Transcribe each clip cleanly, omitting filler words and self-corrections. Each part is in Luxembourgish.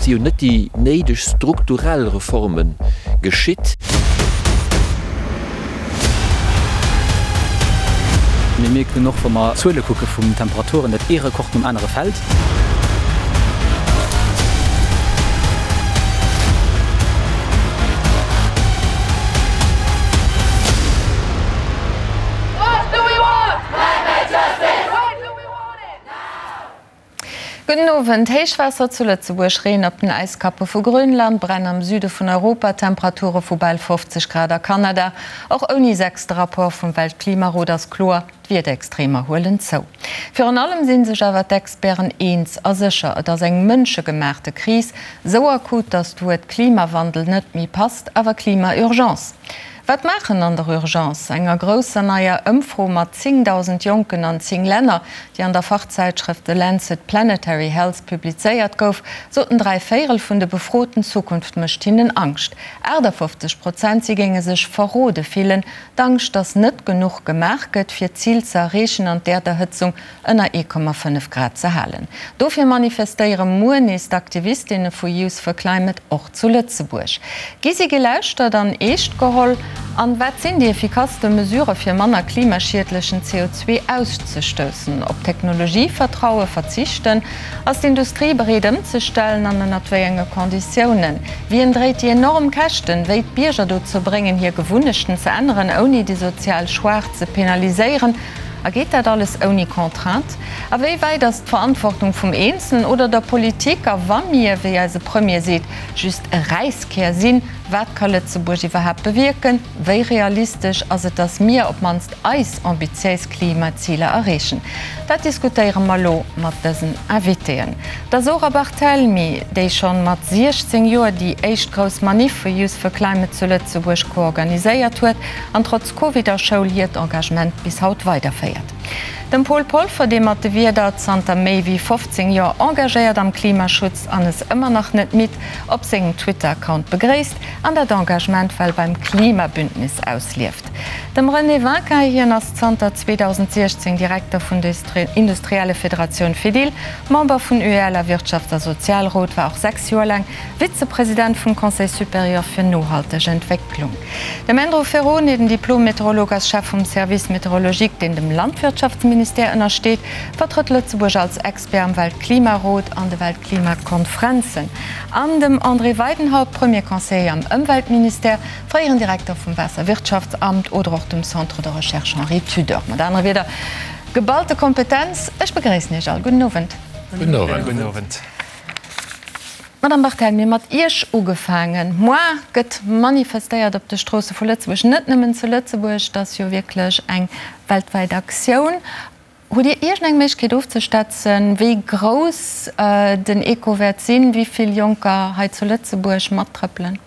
Et si jo net déi néideg strukturell Reforme geschitt. Mir mierken och, wa mer d'Zuele kucke vun Temperaturen, datt ee Rekord nom anere fält. Gudden Owend. Héichwaasser zu Lëtzebuerg, Reen op den Äiskappe vu Grönland, Bränn am Süde vun Europa, Temperature vu bal 50 Grad a Kanada. Och ouni sechste Rapport vum Weltklimarot ass kloer, D'Wiederextremer huelen zou. Virun allem si sech awer d'Experten eens a sécher, et ass eng mënschegemaachte Kris, sou akut, datt d'Wuert Klimawandel net méi passt, awer Klima-Urgence. Wat maachen an der Urgence? Enger grousser neier Ëmfro mat 10.000 Jonken an 10 Länner, déi an der Fachzäitschrëft The Lancet Planetary Health publizéiert gouf, soten 3 Véierel vun de Befroten, d'Zukunft mécht hinnen Angscht. 58 Prozent si géinge sech verrode fillen. D'Angscht, datt net genuch gemaach gëtt, fir d'Zil ze erreechen an d'Äerderhëtzung ënner 1,5 Grad ze halen. Dofir manifestéiere muer nees d'Aktivistinne vu Youth for Climate och zu Lëtzebuerg. Gi si gelauschtert an eescht geholl? An wat sinn déi effikasste Mesurë fir manner klimaschiedlechen CO2 auszestoussen? Op Technologie vertrauen, verzichten? Ass d'Industrie bereet ëmzestellen an ënnert wéi enge Konditiounen? Wien dréit déi enorm Käschten? Wéi d'Bierger dozou bréngen hir Gewunnechten ze änneren ouni déi sozial Schwaach ze penaliséieren? A geet dat alles ouni Contrainte? A wéi wäit ass d'Verantwortung vum Eenzelen oder der Politik? A wa mir, wéi eise Premier seet, just e Räiskär sinn, wat ka Lëtzebuerg iwwerhaapt bewierken? Wéi realistesch ass et, datt mir op d'mannst eis ambitiéis Klimaziler erreechen? Dat diskutéiere mer elo mat dësen Invitéen. Der Zora Barthelmy, déi schonn mat 16 Joer déi éischt grouss Maniff vu Youth for Climate zu Lëtzebuerg koorganiséiert huet an trotz Covid a Schoul hiert Engagement bis haut weiderféiert. Dem Paul Polfer, dee mat de Wierder zanter méi wéi 15 Joer engagéiert am Klimaschutz an es ëmmer nach net midd op sengem Twitter-Account begréisst an dat Engagement well beim Klimabündnis auslieft. Dem René Winkin, hien ass zanter 2016 Direkter vun der Industriellefederatioun Fedil, Member vun UEL a Wirtschafts a Sozialrot, war och 6 Joer laang Vizepresident vum Conseil supérieur fir nohalteg Entwécklung. Dem Andrew Ferrone, den Diplom-Meteorolog, ass Chef vum Service météorologique, deen dem Landwirtschaftsministère ënnersteet, vertrëtt Lëtzebuerg als Expert am Weltklimarot an de Weltklimakonfrenzen. An dem André Weidenhaupt, Premier Conseiller am Ëmweltministère, fréieren Direkter vum Waasserwirtschaftsamt oder och dem Centre de Recherche Henri Tudor. Mat anere Wierder, geballte Kompetenz. Ech begréissen Iech all. Gudden Owend. Gudden Owend. Madame Barthelmy, mat Iech ugefaangen. Moar gëtt manifestéiert op de Stroosse vu Lëtzebuerg, net nëmmen zu Lëtzebuerg, et ass jo wierklech eng weltwäit Aktioun. Hutt Dir iergendeng Méiglechkeet ofzeschätzen, wéi grouss den Echo wäert sinn, wéi vill Jonker hei zu Lëtzebuerg mattrëppelen?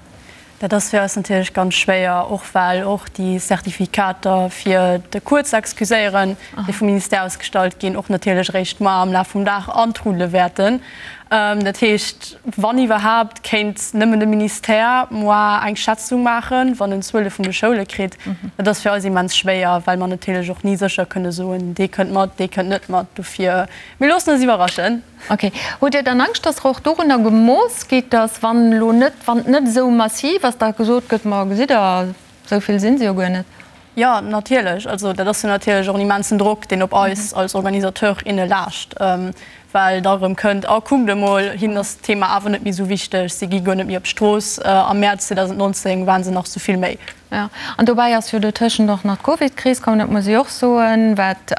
Dat ass fir eis natierlech ganz schwéier, och well och déi Zertifikater fir de Cours ze excuséieren, déi vum Ministère ausgestallt ginn, och natierlech eréischt muer am Laf vum Dag antrudele wäerten. Dat heescht, wann iwwerhaapt, kéint nëmmen de Ministère muer eng Schätzung maachen, wann en d'Zuele vun de Schoule kritt. Dat ass fir eis immens schwéier, well mer natierlech och ni sécher kënne soen, dee kënnt mat, dee kënnt net mat. Dofir, mir loossen eis iwwerraschen. Ok. Hutt Dir dann Angscht, dass der och dorunner gemooss gitt, dass wann elo net, wann et net esou massiv ass, da gesot gëtt, ma gesitt Der, esou vill si se jo guer net? Jo, natierlech. Also dat ass jo natierlech och en immensen Drock, deen op eis als Organisateur, inne laascht, well da erëm kënnt, A kuckt emol, hinnen ass d'Thema awer net méi esou wichteg, si gi guer net méi op d'Strooss. Am Mäerz 2019 ware se nach esou vill méi. Jo, an dobäi ass jo dotëschent och nach d'Covidkris komm, dat muss ee och soen, wat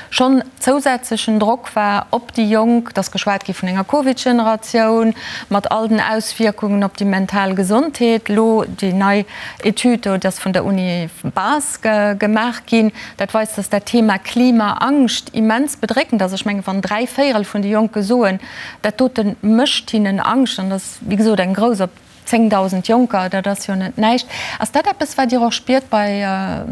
schonn zousätzlechen Drock war op déi Jonk. Et ass geschwat gi vun enger Covidgeneratioun mat all den Auswierkungen op déi mental Gesondheet. Elo déi nei Etüd do, déi ass vun der Uni Bas gemaach ginn, dat weist, datt dat Thema Klimaangscht immens bedréckend ass. Ech mengen, wann 3 Véierel vun de Jonke soen, dat dote mécht hinnen Angscht, an dat ass wéi gesot eng grouss op 10.000 Jonker, dat ass jo net näischt. Ass dat eppes, wat Dir och spiert bei,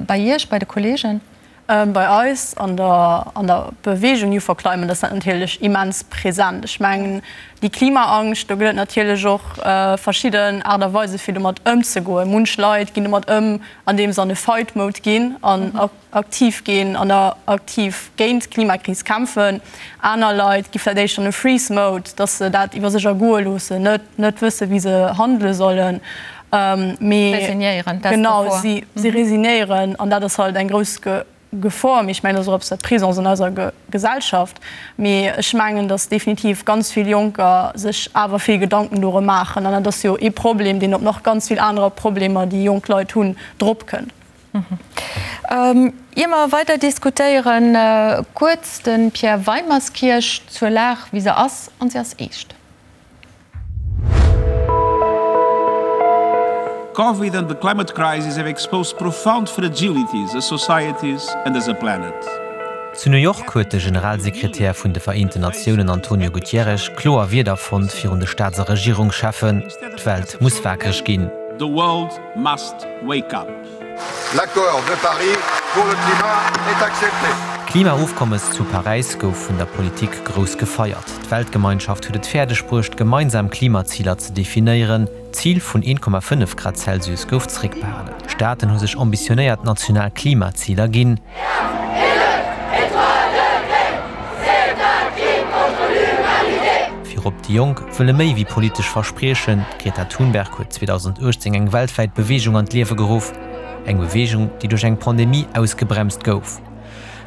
bei Iech, bei de Kolleegen? Bei eis an der an der Beweegung Youth for Climate ass dat natierlech immens present. Ech mengen, déi Klimaangscht, do gëtt et natierlech och verschidden Aart a Weise fir domat ëmzegoen. Munch Leit ginn domat ëm, andeem se an e Fight Mode ginn an aktiv ginn an aktiv géint d'Klimakris kämpfen. Aner Leit gi vläicht éischter an e Freeze Mode, datt se dat iwwer sech ergoe loossen, net net wësse wéi se handele sollen. Mee Resignéieren, dat ass genau, d'Gefor. si si resignéieren an dat ass halt eng grouss Gefor. Mee ech mengen, dat ass och eppes, wat présent ass an eiser Gesellschaft. Mee ech mengen, datt definitiv ganz vill Jonker sech awer vill Gedanken dorëm maachen. An dat ass jo ee Problem, deen op nach ganz vill anerer Problemer, déi jonk Leit hunn, dropkënnt. Ier mer weider diskutéieren, kuerz de Pierre Weimerskirch zur Lag, wéi se ass, an se ass eescht. Covid and the climate crisis have exposed profound fragilities as societies and as a planet. Zu New York huet de Generalsekretär vun de Vereenten Natiounen Antonio Gutierrez kloer Wierder fonnt virun de Staats a Regierungscheffen, D'Welt muss wakereg ginn. The world must wake up. L'accord de Paris pour le climat est accepté. D'Klimaofkommes zu Paräis gouf vun der Politik grouss gefeiert. D'Weltgemeinschaft huet et fäerdeg bruecht, gemeinsam Klimaziler ze definéieren. D'Zil vun 1,5 Grad Celsius gouf zeréckbehalen. Staaten hu sech ambitionéiert national Klimaziler ginn. Virop déi Jonk wëlle méi wéi politesch Verspriechen. D'Greta Thunberg huet 2018 eng weltwäit Beweegung an d'Liewe geruff. Eng Beweegung, déi duerch eng Pandemie ausgebremst gouf.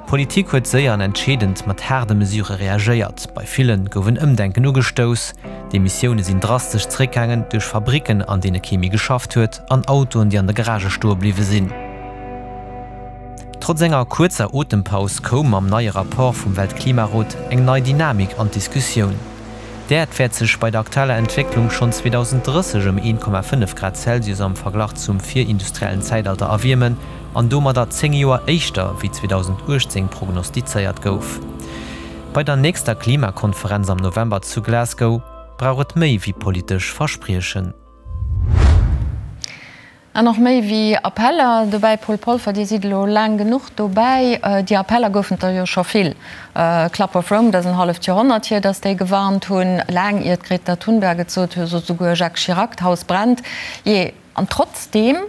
D'Politik huet séier an entscheedend mat haarde Mesure reagéiert. Bei ville gouf en Ëmdenken ugestouss. D'Emissioune sinn drastesch zeréckgaangen, duerch Fabricken, an deene kee méi geschafft huet, an Autoen, déi an de Garagë stoe bliwwe sinn. Trotz enger kuerzer Otempaus koum mam neie Rapport vum Weltklimarot eng nei Dynamik an d'Diskussioun. D'Äerd wäert sech bei der aktueller Entwécklung schonn 2030 ëm 1,5 Grad Celsius am Verglach zum virindustriellen Zäitalter erwiermen an domadder 10 Joer éischter wéi 2018 prognostizéiert gouf. Bei der nächster Klimakonferenz am November zu Glasgow brauch et méi wéi politesch Verspriechen. An och méi wéi Appeller. Dobäi, Paul Polfer, Dir sidd elo laang genuch dobäi, déi Appeller goufen et der jo scho vill. Club of Rome, dat ass en halleft Joerhonnert hier, datt déi gewarnt hunn, laang ier d'Greta Thunberg et sot, sot souguer Jacques Chirac, d'Haus brennt. Jee, an trotzdeem,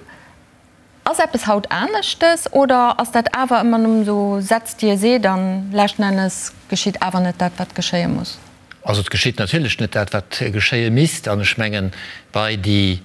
ass eppes haut aneschtes oder ass dat awer ëmmer nëmmen esou Sätz, déi ee seet an leschten Ennes geschitt awer net dat, wat geschéie muss? Also et geschitt natierlech net dat, wat geschéie misst. An ech mengen, bei déi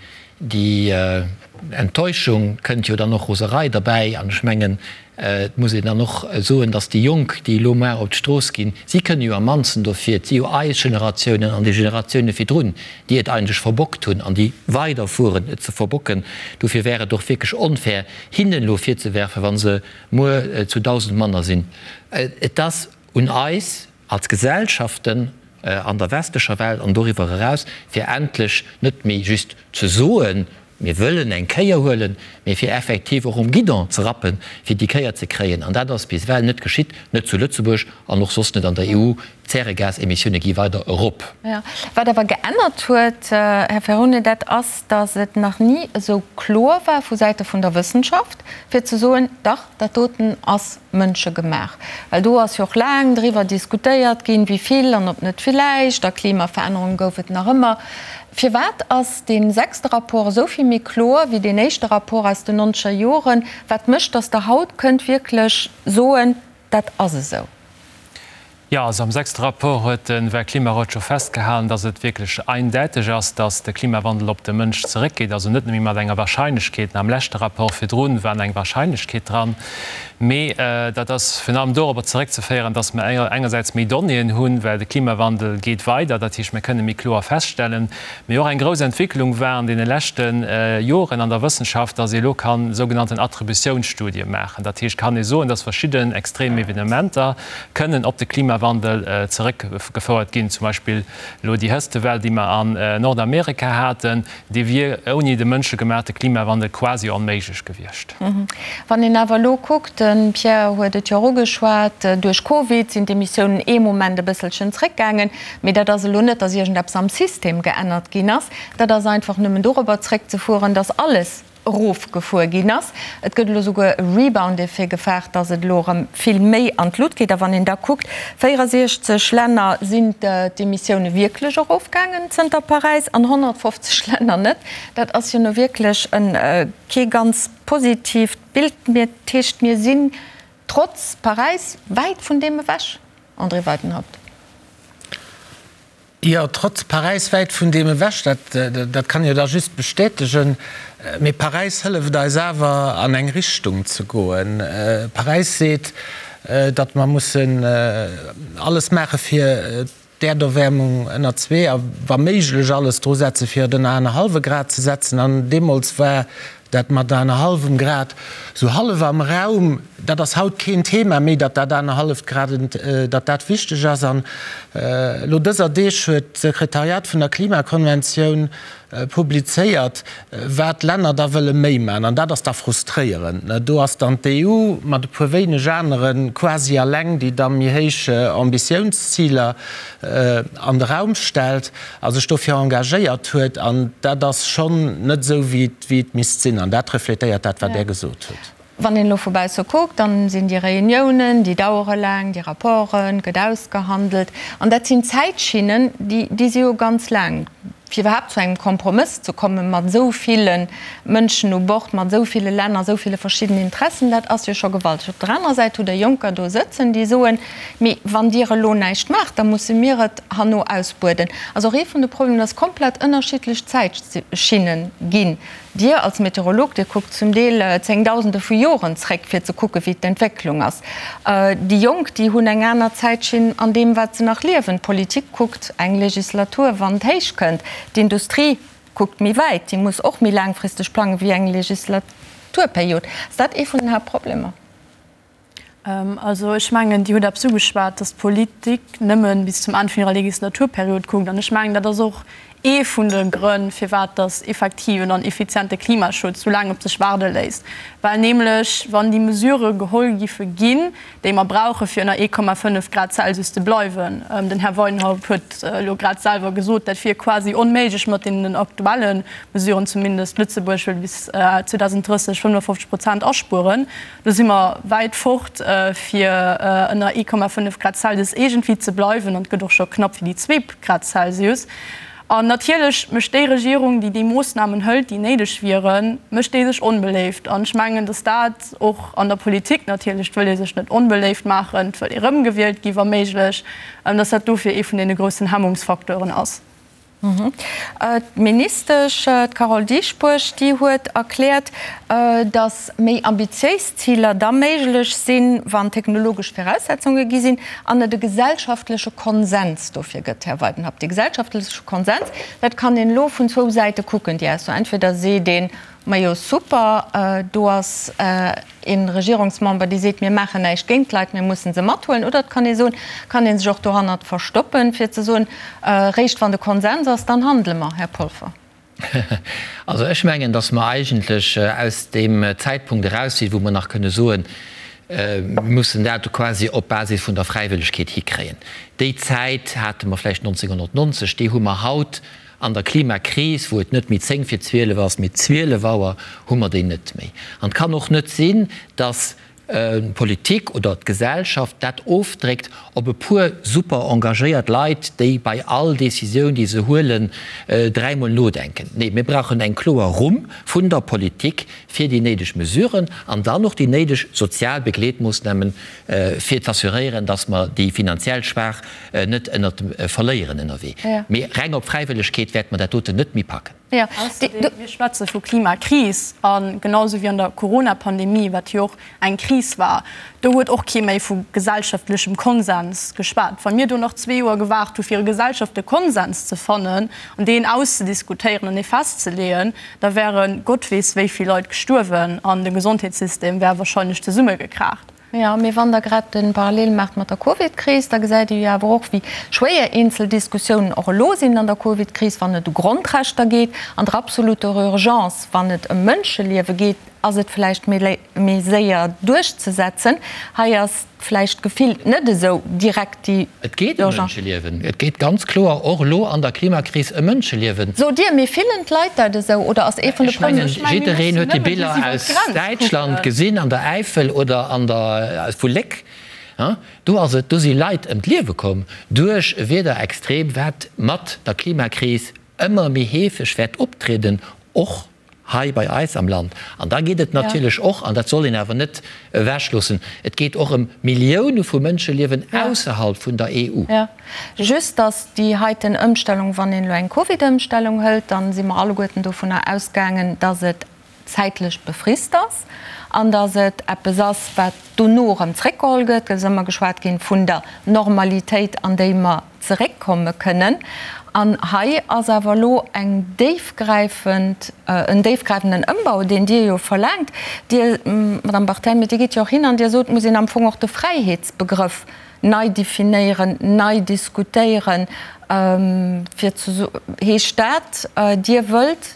Enttäuschung kënnt jo dann och Roserei derbäi. An ech mengen, et muss een dann och soen, datt déi Jonk, déi elo mar op d'Strooss ginn, si kënne jo am mannsten dofir. Et si jo eis Generatiounen an déi Generatioune virdrun, déi et eigentlech verbockt hunn an déi weiderfueren, et ze verbocken. Dofir wär et och wierklech onfair, hinnen elo virzewerfen, wa se muer zu 1.000 manner sinn. Et ass un eis, als Gesellschaften an der westlecher Welt an doriwwer eraus, fir endlech net méi just ze soen, mir wëllen eng Kéier huelen, mee fir effektiv och um Guidon ze rappen, fir déi Kéier ze kréien. An dat ass bis ewell net geschitt, net zu Lëtzebuerg an och soss net an der EU. D'Zäregasemissioune gi weider erop. Wat awer geännert huet, Här Ferrone, dat ass, datt et nach ni esou kloer war vu Säite vun der Wëssenschaft, fir ze soen, dach, dat doten ass Mënsche gemaach. Well do ass jo och laang driwwer diskutéiert ginn, wéi vill an ob net villäicht, a Klimaverännerung gouf et nach ëmmer. Firwat ass dee sechste Rapport esou vill méi kloer wéi deen éischte Rapport aus den nonzeger Joren? Wat mécht, datt Der haut kënnt wierklech soen, dat ass esou? Jo, also am sechste Rapport huet de Weltklimarot scho festgehalen, dass et wierklech eindäiteg ass, dass de Klimawandel op de Mënsch zeréckgeet. Also net nëmme mat enger Wahrscheinlechkeet, am leschte Rapport virdrun war eng Wahrscheinlechkeet dran, mee dat ass virun allem dorobber zeréckzeféieren, dass mer engersäits méi Donnéeën hunn, well de Klimawandel geet weider, dat heescht, mir kënne méi kloer feststellen, Mee och eng grouss Entwicklung war an deene leschte Joren an der Wëssenschaft, dass ee elo kann sougenannten Attributiounsstudie maachen. Dat heescht, kann ee soen, dass verschidden extrem Evenementer kënnen op de Klimawandel zeréckgefouert ginn. Zum Beispill elo déi Hëtztewell, déi mer an Nordamerika haten, déi wier ouni de mënschegemaachte Klimawandel quasi onméiglech gewiescht. Wann een awer elo kuckt, de Pierre huet et jo och ugeschwat, duerch Covid sinn d'Emissiounen ee Moment e bësselchen zréckgaangen, mee dat ass elo net, datt iergendeppes am System geännert ginn ass, dat ass einfach nëmmen dorobber zréckzefueren, datt alles. erofgefuer ginn ass. Et gëtt elo souguer e Rebound-Effet gefaart, datt et elo erëm vill méi an d'Lut geet. A wann een da kuckt, 64 Länner sinn d'Emissioune wierklech erofgaangen zënter Paräis an 150 Länner net. Dat ass jo nu wierklech kee ganz positiivt Bild. Dat heescht, mir sinn trotz Paräis wäit vun deem ewech, André Weidenhaupt. Jo, trotz Paräis wäit vun deem ewech, dat, dat kann jo da just bestätegen. Mee Paräis hëlleft eis awer an eng Richtung ze goen. Paräis seet, datt mer mussen alles maache fir d'Äerderwäermung ënner zwee a wa méiglech alles dru setze fir et ënner anerhallwe Grad ze setzen. An deemools war Dat mat anerhallwem Grad sou hallef am Raum, dat ass haut keen Thema méi, datt dat anerhalleft Grad, datt dat wichteg ass. An elo dëser Deeg huet d'Sekretariat vun der Klimakonventioun publizéiert, wat d'Länner da wëlle méi maachen. An dat ass da frustréierend. Do ass dann d'EU mat e puer wéineg anere quasi alleng, déi da méi héich Ambitiounsziler an de Raum stellt. A sech dofir engagéiert huet. An dat ass schonn net esou, wéi et misst sinn. An dat refletéiert dat, wat Der gesot hutt. Wann een elo vu bausse kuckt, dann sinn déi Reuniounen, déi dauere laang, déi Rapporten, gëtt ausgehandelt. An dat sinn Zäitschinnen, déi si jo ganz laang, fir iwwerhaapt zu engem Kompromëss ze kommen, mat esou ville Mënschen u Bord, mat esou ville Länner, esou ville verschiddenen Interessen, dat ass jo scho gewalteg. Op der anerer Säit hutt Der Jonker do sëtzen, déi soen, Mee wann Dir elo näischt maacht, da musse mir et herno ausbueden. Also och ee vun de Problemer, dass komplett ënnerschiddlech Zäitschinne ginn. Dir als Meteorolog, Dir kuckt zum Deel Zéngdausende vu Joren zréck, fir ze kucke wéi d'Entwécklung ass. Déi Jonk, déi hunn eng aner Zäitschinn an deem, wat se nach liewen. D'Politik kuckt eng Legislatur, wann et héich kënnt. D'Industrie kuckt méi wäit, déi muss och méi laangfristeg plange wéi eng Legislaturperiod. Ass dat ee vun den Haaptproblemer? Also ech mengen, Dir hutt eppes ugeschwat, datt d'Politik nëmme bis zum Enn vun hirer Legislaturperiod kuckt. An ech mengen, dat ass och ee vun de Grënn, firwat datt effektiven an effiziente Klimaschutz sou laang op sech waarde léisst. Well nämlech, wann déi Mesurë geholl giffe ginn, déi mer brauche fir ënner 1,5 Grad Celsius ze bleiwen, den Här Weidenhaupt huet elo grad selwer gesot, dat wier quasi onméiglech mat deenen aktuelle Mesuren, zumindest Lëtzebuerg wëll bis 2030 55 Prozent aspueren, Do si mer wäit fort, fir ënner 1,5 Grad Celsius iergendwéi ze bleiwen, an et gëtt och scho knapp fir déi zwee Grad Celsius. An natierlech mécht déi Regierung, déi déi Moossnamen hëlt, déi néideg wieren, mécht déi sech onbeléift. An ech mengen, datt dat och an der Politik natierlech, et wëll ee sech net onbeléift maachen, et wëll ee erëmgewielt gi wa méiglech, datt dat dofir ee vun deene groussen Hemmungsfacteuren ass. D'Ministesch, d'Carole Dieschbourg, déi huet erkläert, datt méi ambitiéis Ziler da méiglech sinn, wann technologesch Viraussetzunge gi sinn an et e gesellschaftleche Konsens dofir gëtt. Här Weidenhaupt, dee gesellschaftleche Konsens, dat kann een elo vun zwou Säite kucken, déi Ausso. Entweder seet een, Majo super, do ass ee Regierungsmember, dee seet, mir maachen näischt géint d'Leit, mir mussen se mathuelen. Oder et kann ee soen, kann ee sech och dohannert verstoppen, fir ze soen, réischt wann de Konsens ass, dann handele mer. Här Polfer. Also ech mengen, datt mer eigentlech aus deem Zäitpunkt eraus sinn, wou mer nach kënne soen, mir mussen dat quasi op Basis vun der Fräiwëllegkeet hikréien. Déi Zäit hate mer vläicht 1990, déi hu mer haut An der Klimakris, wou et net méi 10 vir 12 ass, mee 12 Auer, hu mer déi net méi. An et kann och net sinn, dass d'Politik oder d'Gesellschaft dat ofdréckt op e puer super engagéiert Leit, déi bei all Décisioun, déi se huelen, dräimol nodenken. Nee, mir brauchen eng kloer Rumm vun der Politik fir déi néideg Mesuren an dann och déi néideg sozial Begleetmoossnamen, fir z'assuréieren, dass mer déi finanziell Schwaach net ënnert dem verléieren ënnerwee. Mee reng op Fräiwëllegkeet wäerte mer dat doten net méi packen. Ausserdeem, mir schwätze vu Klimakris a genau esou wéi an der Corona-Pandemie, wat jo och eng Kris war, do huet och kee méi vu gesellschaftlechem Konsens geschwat. Wa mir do nach zwee Joer gewaart hu fir e gesellschaftleche Konsens ze fannen an deen auszediskutéieren an dee festzeleeën, da wäre Gott weess wéi vill Leit gestuerwen an de Gesondheetssystem wär wahrscheinlech zesummegekraacht. Jo, mee wann Der grad de Parallel maacht mat der Covidkris, da gesäit ee jo awer och, wéi schwéier eenzel Diskussiounen och elo sinn an der Covidkris, wann et u Grondrechter geet, an der absoluter Urgence, wann et ëm Mënscheliewe geet. ass et vläicht méi séier duerchzesetzen. Hei ass vläicht gefillt net esou direkt déi Et geet ëm Mënscheliewen. Et geet ganz kloer och elo an der Klimakris ëm Mënscheliewen. Sot Dir, mee fillen d'Leit dat esou oder ass ee vun de Ech mengen, jiddereen huet déi Biller aus Däitschland gesinn, an der Äifel oder an der, vu Léck. Do ass et, do si Leit ëm d'Liewe komm duerch e Wiederextrem, wat mat der Klimakris ëmmer méi heefeg wäert optrieden, och hei bei eis am Land. An da geet et natierlech och, an dat soll een awer net ewechloossen, et geet och ëm Millioune vu Mënscheliewen ausserhalb vun der EU. Jo, just datt déi heiten Ëmstellung, wann een elo eng Covid-Ëmstellung hëlt, da si mer alleguerten dovunner ausgaangen, datt et zäitlech befrist ass an datt et eppes ass, wat dono erëm zréckgeholl gëtt. Et ass ëmmer geschwat ginn vun der Normalitéit, an déi mer zeréckkomme kënnen. An hei ass awer elo eng déifgräifend, en déifgräifenden Ëmbau, deen Dir jo verlaangt. Dir, Madame Barthelmy, Dir gitt jo och hin an Dir sot, et muss een am Fong och de Fräiheetsbegrëff nei definéieren, nei diskutéieren, fir ze, heescht dat, Dir wëllt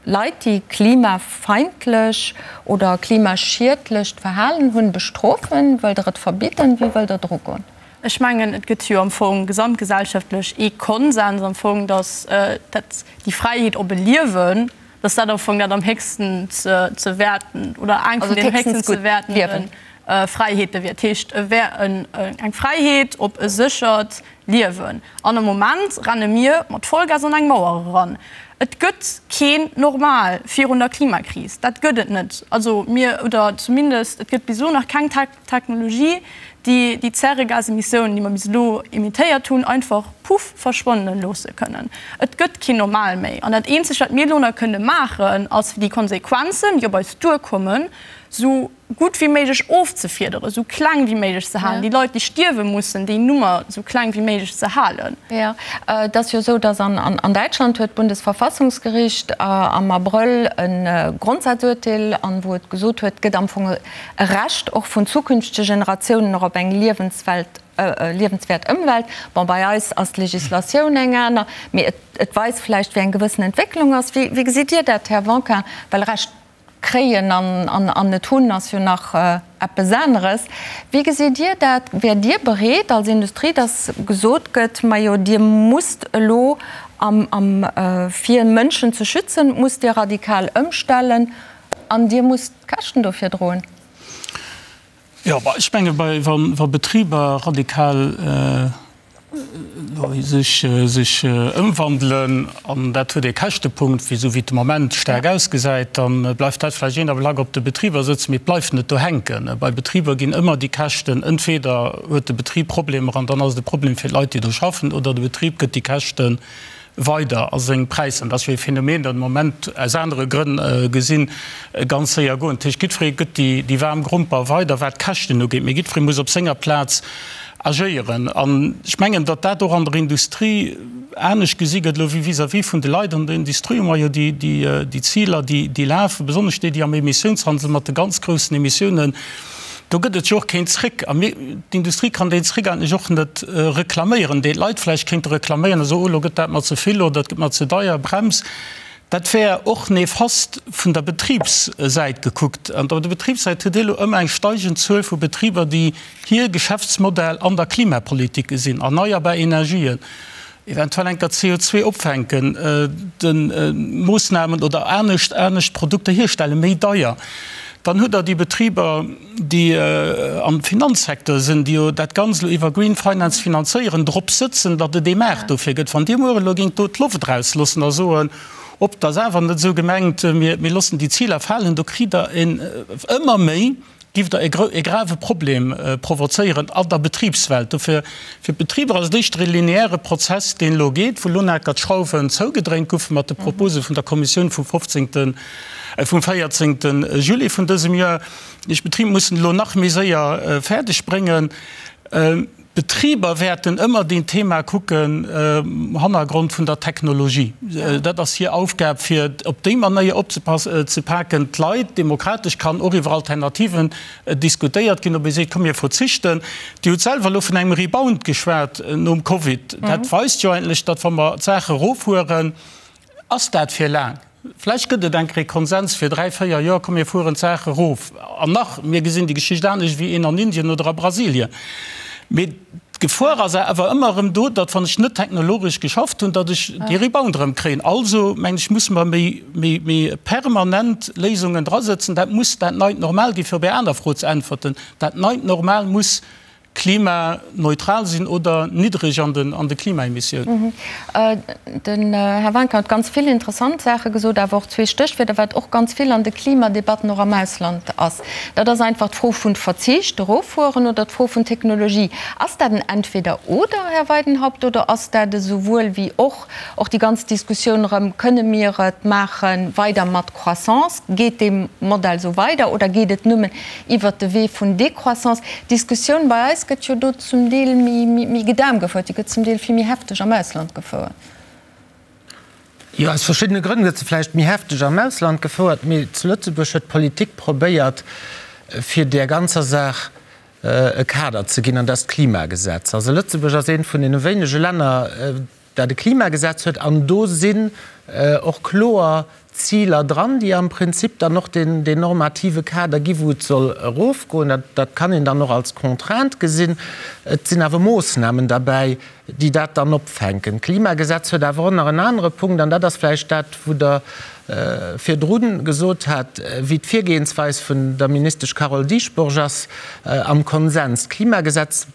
Leit, déi klimafeindlech oder klimaschiedlecht Verhalen hunn, bestrofen? Wëllt Der et verbidden? Wéi wëllt Der dru goen? Ech mengen, et gëtt jo am Fong gesamtgesellschaftlech ee Konsens am Fong, datt dat déi Fräiheet op e Liewen, datt dat am Fong dat am héchsten ze wäerten oder eng vun den héchsten ze wäertende Fräiheete wier. Dat heescht, e wär eng Fräiheet op e séchert Liewen. An am Moment renne mir mat Vollgas an eng Mauer eran. Et gëtt keen Normal virun der Klimakris. Dat gëtt et net. Also mir, oder zumindest et gëtt bis elo nach keng Technologie, déi déi Zäregasemissiounen, déi mer bis elo emittéiert hunn, einfach puff verschwannen loosse kënnen. Et gëtt keen Normal méi. An dat Eenzegt, wat mir elo nach kënne maachen, ass fir déi Konsequenzen, déi op eis duerkommen, esou gutt wéi méiglech ofzefiederen, esou kleng wéi méiglech ze halen, déi Leit, déi stierwe mussen, déi Nummer esou kleng wéi méiglech ze halen. Jo, et ass jo esou, datt an Däitschland huet d'Bundesverfassungsgericht am Abrëll e Grondsazuerteel, an wou et gesot huet, et gëtt am Fong e Recht och vun zukünftege Generatiounen och op eng Liewenswelt, liewenswäert Ëmwelt. Bon, bei eis ass d'Legislatioun eng aner, mee et weist vläicht, wéi eng gewëssen Entwécklung ass. Wéi gesitt Dir dat, Här Wanka? Well Recht Kréien an net hunn ass jo nach eppes aneres. Wéi gesitt Dir dat? Wäert Dir bereet als Industrie, datt gesot gëtt, majo Dir musst elo am fir Mënschen ze schützen, musst Dir radikal ëmstellen an Dir musst d'Käschten dofir droen? Jo, ech menge wa Betriber radikal sech ëmwandelen, an dat huet ee Käschtepunkt, wéi esou wéi et de Moment staark ausgesäit, da bleift dat vläicht een Ablack op de Betriber sëtzen, mee et bleift net do hänken. Bei Betriber ginn ëmmer déi Käschten, entweder huet de Betrib Problemer an dann ass et e Problem fir d'Leit, déi do schaffen, oder de Betrib gëtt déi Käschten weider a seng Präisser, dat ass jo ee Phänomen, dat de Moment aus anere Grënn gesinn, ganz séier goen. Dat heescht, jiddweree gëtt déi waarm Gromper weider, wat d'Käschten ugeet, mee jiddweree muss op senger Plaz agéieren. An ech mengen, datt dat och an der Industrie anescht gesi gëtt elo wéi vis-à-vis vun de Leit. An der Industrie hu mer jo déi Ziler, déi lafen, besonnesch déi, déi am Emissiounshandel mat de ganz groussen Emissiounen, Do gëtt et jo och keen Zréck. A mir, d'Industrie kann deen Zréck eigentlech och net reklaméieren, deen d'Leit vläicht kéinte reklaméieren a soen, oh, elo gëtt dat mer ze vill oder et gëtt mer ze deier, Brems. Dat wär och nefast vun der Betribssäit gekuckt. An op der Betribssäit hutt Dir elo ëmmer eng steigend Zuel vu Betriber, déi hir Geschäftsmodell an der Klimapolitik gesinn, erneierbar Energien, eventuell enker CO2 opfänken, de Moossnamen oder anescht anescht Produkter hierstellen, méi deier. Dann hutt Der déi Betriber, déi am Finanzsecteur sinn, déi jo dat Ganzt elo iwwer Green Finance finanzéieren, drop sëtzen, datt et ee Maart dofir gëtt. Wann Dir muer elo géingt do d'Loft erausloossen a soen, Op, dat ass awer net esou gemengt, mir loossen déi Ziler falen, do kritt Der en ëmmer méi, Giff der e grave Problem provozéieren an der Betribswelt. Dofir, fir d'Betriber ass et éischter e lineäre Prozess, deen elo geet, wou elo naker d'Schrauwen zougedréint goufe mat de Propose vun der Kommissioun vum 15., vum 14. Juli vun dësem Joer. Déi Betriber mussen elo nach méi séier fäerdeg bréngen. D'Betriber wäerten ëmmer deen Thema kucken um Hannergrond vun der Technologie. Dat ass hir Aufgab, fir op déi Manéier opzepaken. D'Leit, demokratesch kann och iwwer Alternativen diskutéiert ginn, ob ee seet, komm mir verzichten. Dir hutt selwer elo vun engem Rebound geschwat nom Covid. Dat weist jo eigentlech, datt wa mer d'Saache eroffueren, ass dat fir laang. Vläicht gëtt et eng Kéier Konsens fir 3, 4 Joer, komm mir fueren d'Saach erof. An nach, mir gesinn déi Geschicht anescht wéi een an Indien oder a Brasilien. Mee d'Gefor ass awer ëmmer erëm do, datt wann ech net technologesch geschafft hunn, datt ech dee Rebound erëm kréien. Also mengen ech, musse mer méi, méi, méi permanent Léisungen drasëtzen. Dat muss dat neit Normal ginn, fir op Är aner Fro ze äntwerten. Dat neit Normal muss klimaneutral sinn oder niddreg an den an de Klimaemissiounen. Den Här Wanka huet ganz vill interessant Saache gesot, awer och zwee Stéchwierder, wat och ganz vill an de Klimadebatten och am Ausland ass. Dat ass einfach d'Fro vun Verzicht, eroffueren, oder d'Fro vun Technologie. Ass dat en Entweder-oder, Här Weidenhaupt, oder ass dat e souwuel wéi och? Och déi ganz Diskussioun erëm, Kënne mir et maache weider mat Croissance? Geet dee Modell esou weider oder geet et nëmmen iwwert de Wee vun Décroissance? D'Diskussioun bei eis gëtt jo do zum Deel méi gedämpt gefouert, déi gëtt zum Deel vill méi hefteg am Ausland gefouert. Jo, aus verschiddene Grënn gëtt se vläicht méi hefteg am Ausland gefouert, mee zu Lëtzebuerg huet d'Politik probéiert, fir där ganzer Saach e Kader ze ginn, an dat ass d'Klimagesetz. Also Lëtzebuerg ass eent vun deene wéinege Länner, dat e Klimagesetz huet, an do sinn och kloer Ziler dran, déi am Prinzip dann och deen normative Kader gi wou et soll erofgoen. Dat kann een dann och als Contrainte gesinn. Et sinn awer Moossnamen derbäi, déi dat dann opfänken. D'Klimagesetz huet awer och nach en anere Punkt, an dat ass vläicht dat, wou Der virdru gesot hat, wéi d'Virgehensweis vun der Ministesch Carole Dieschbourg ass am Konsens. D'Klimagesetz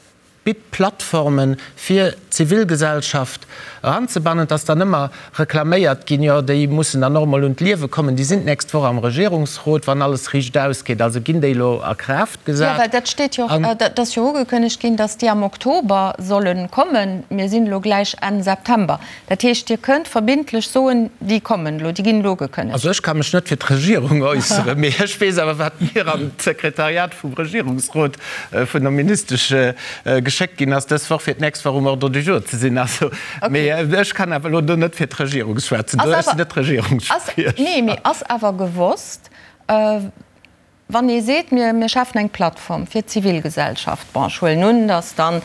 bitt Plattformen, fir d'Zivilgesellschaft eranzebannen. Et ass dann ëmmer reklaméiert ginn, jo, déi mussen dann och emol un d'Liewe kommen. Déi sinn d'nächst Woch am Regierungsrot, wann alles riicht ausgeet. Also ginn déi elo a Kraaft gesat. Jo, well dat steet jo och, dat ass jo ugekënnegt ginn, datt déi am Oktober solle kommen. Mir sinn elo gläich Enn September. Dat heescht, Dir kënnt verbindlech soen, déi kommen elo, déi ginn elo ugekënnegt. Also ech ka mech net fir d'Regierung äusseren, mee ech weess awer, wat mir an d'Sekretariat vum Regierungsrot vun der Ministesch geschéckt ginn ass dës Woch, fir d'nächst Woch um Ordre du jour ze sinn. Also, mee ech kann awer elo do net fir d'Regierung schwätzen, ech sinn net Regierungsspriecher. Nee, mee ass awer gewosst, Wann ee seet, mir schafen eng Plattform fir d'Zivilgesellschaft, bon, ech huelen un, datt dann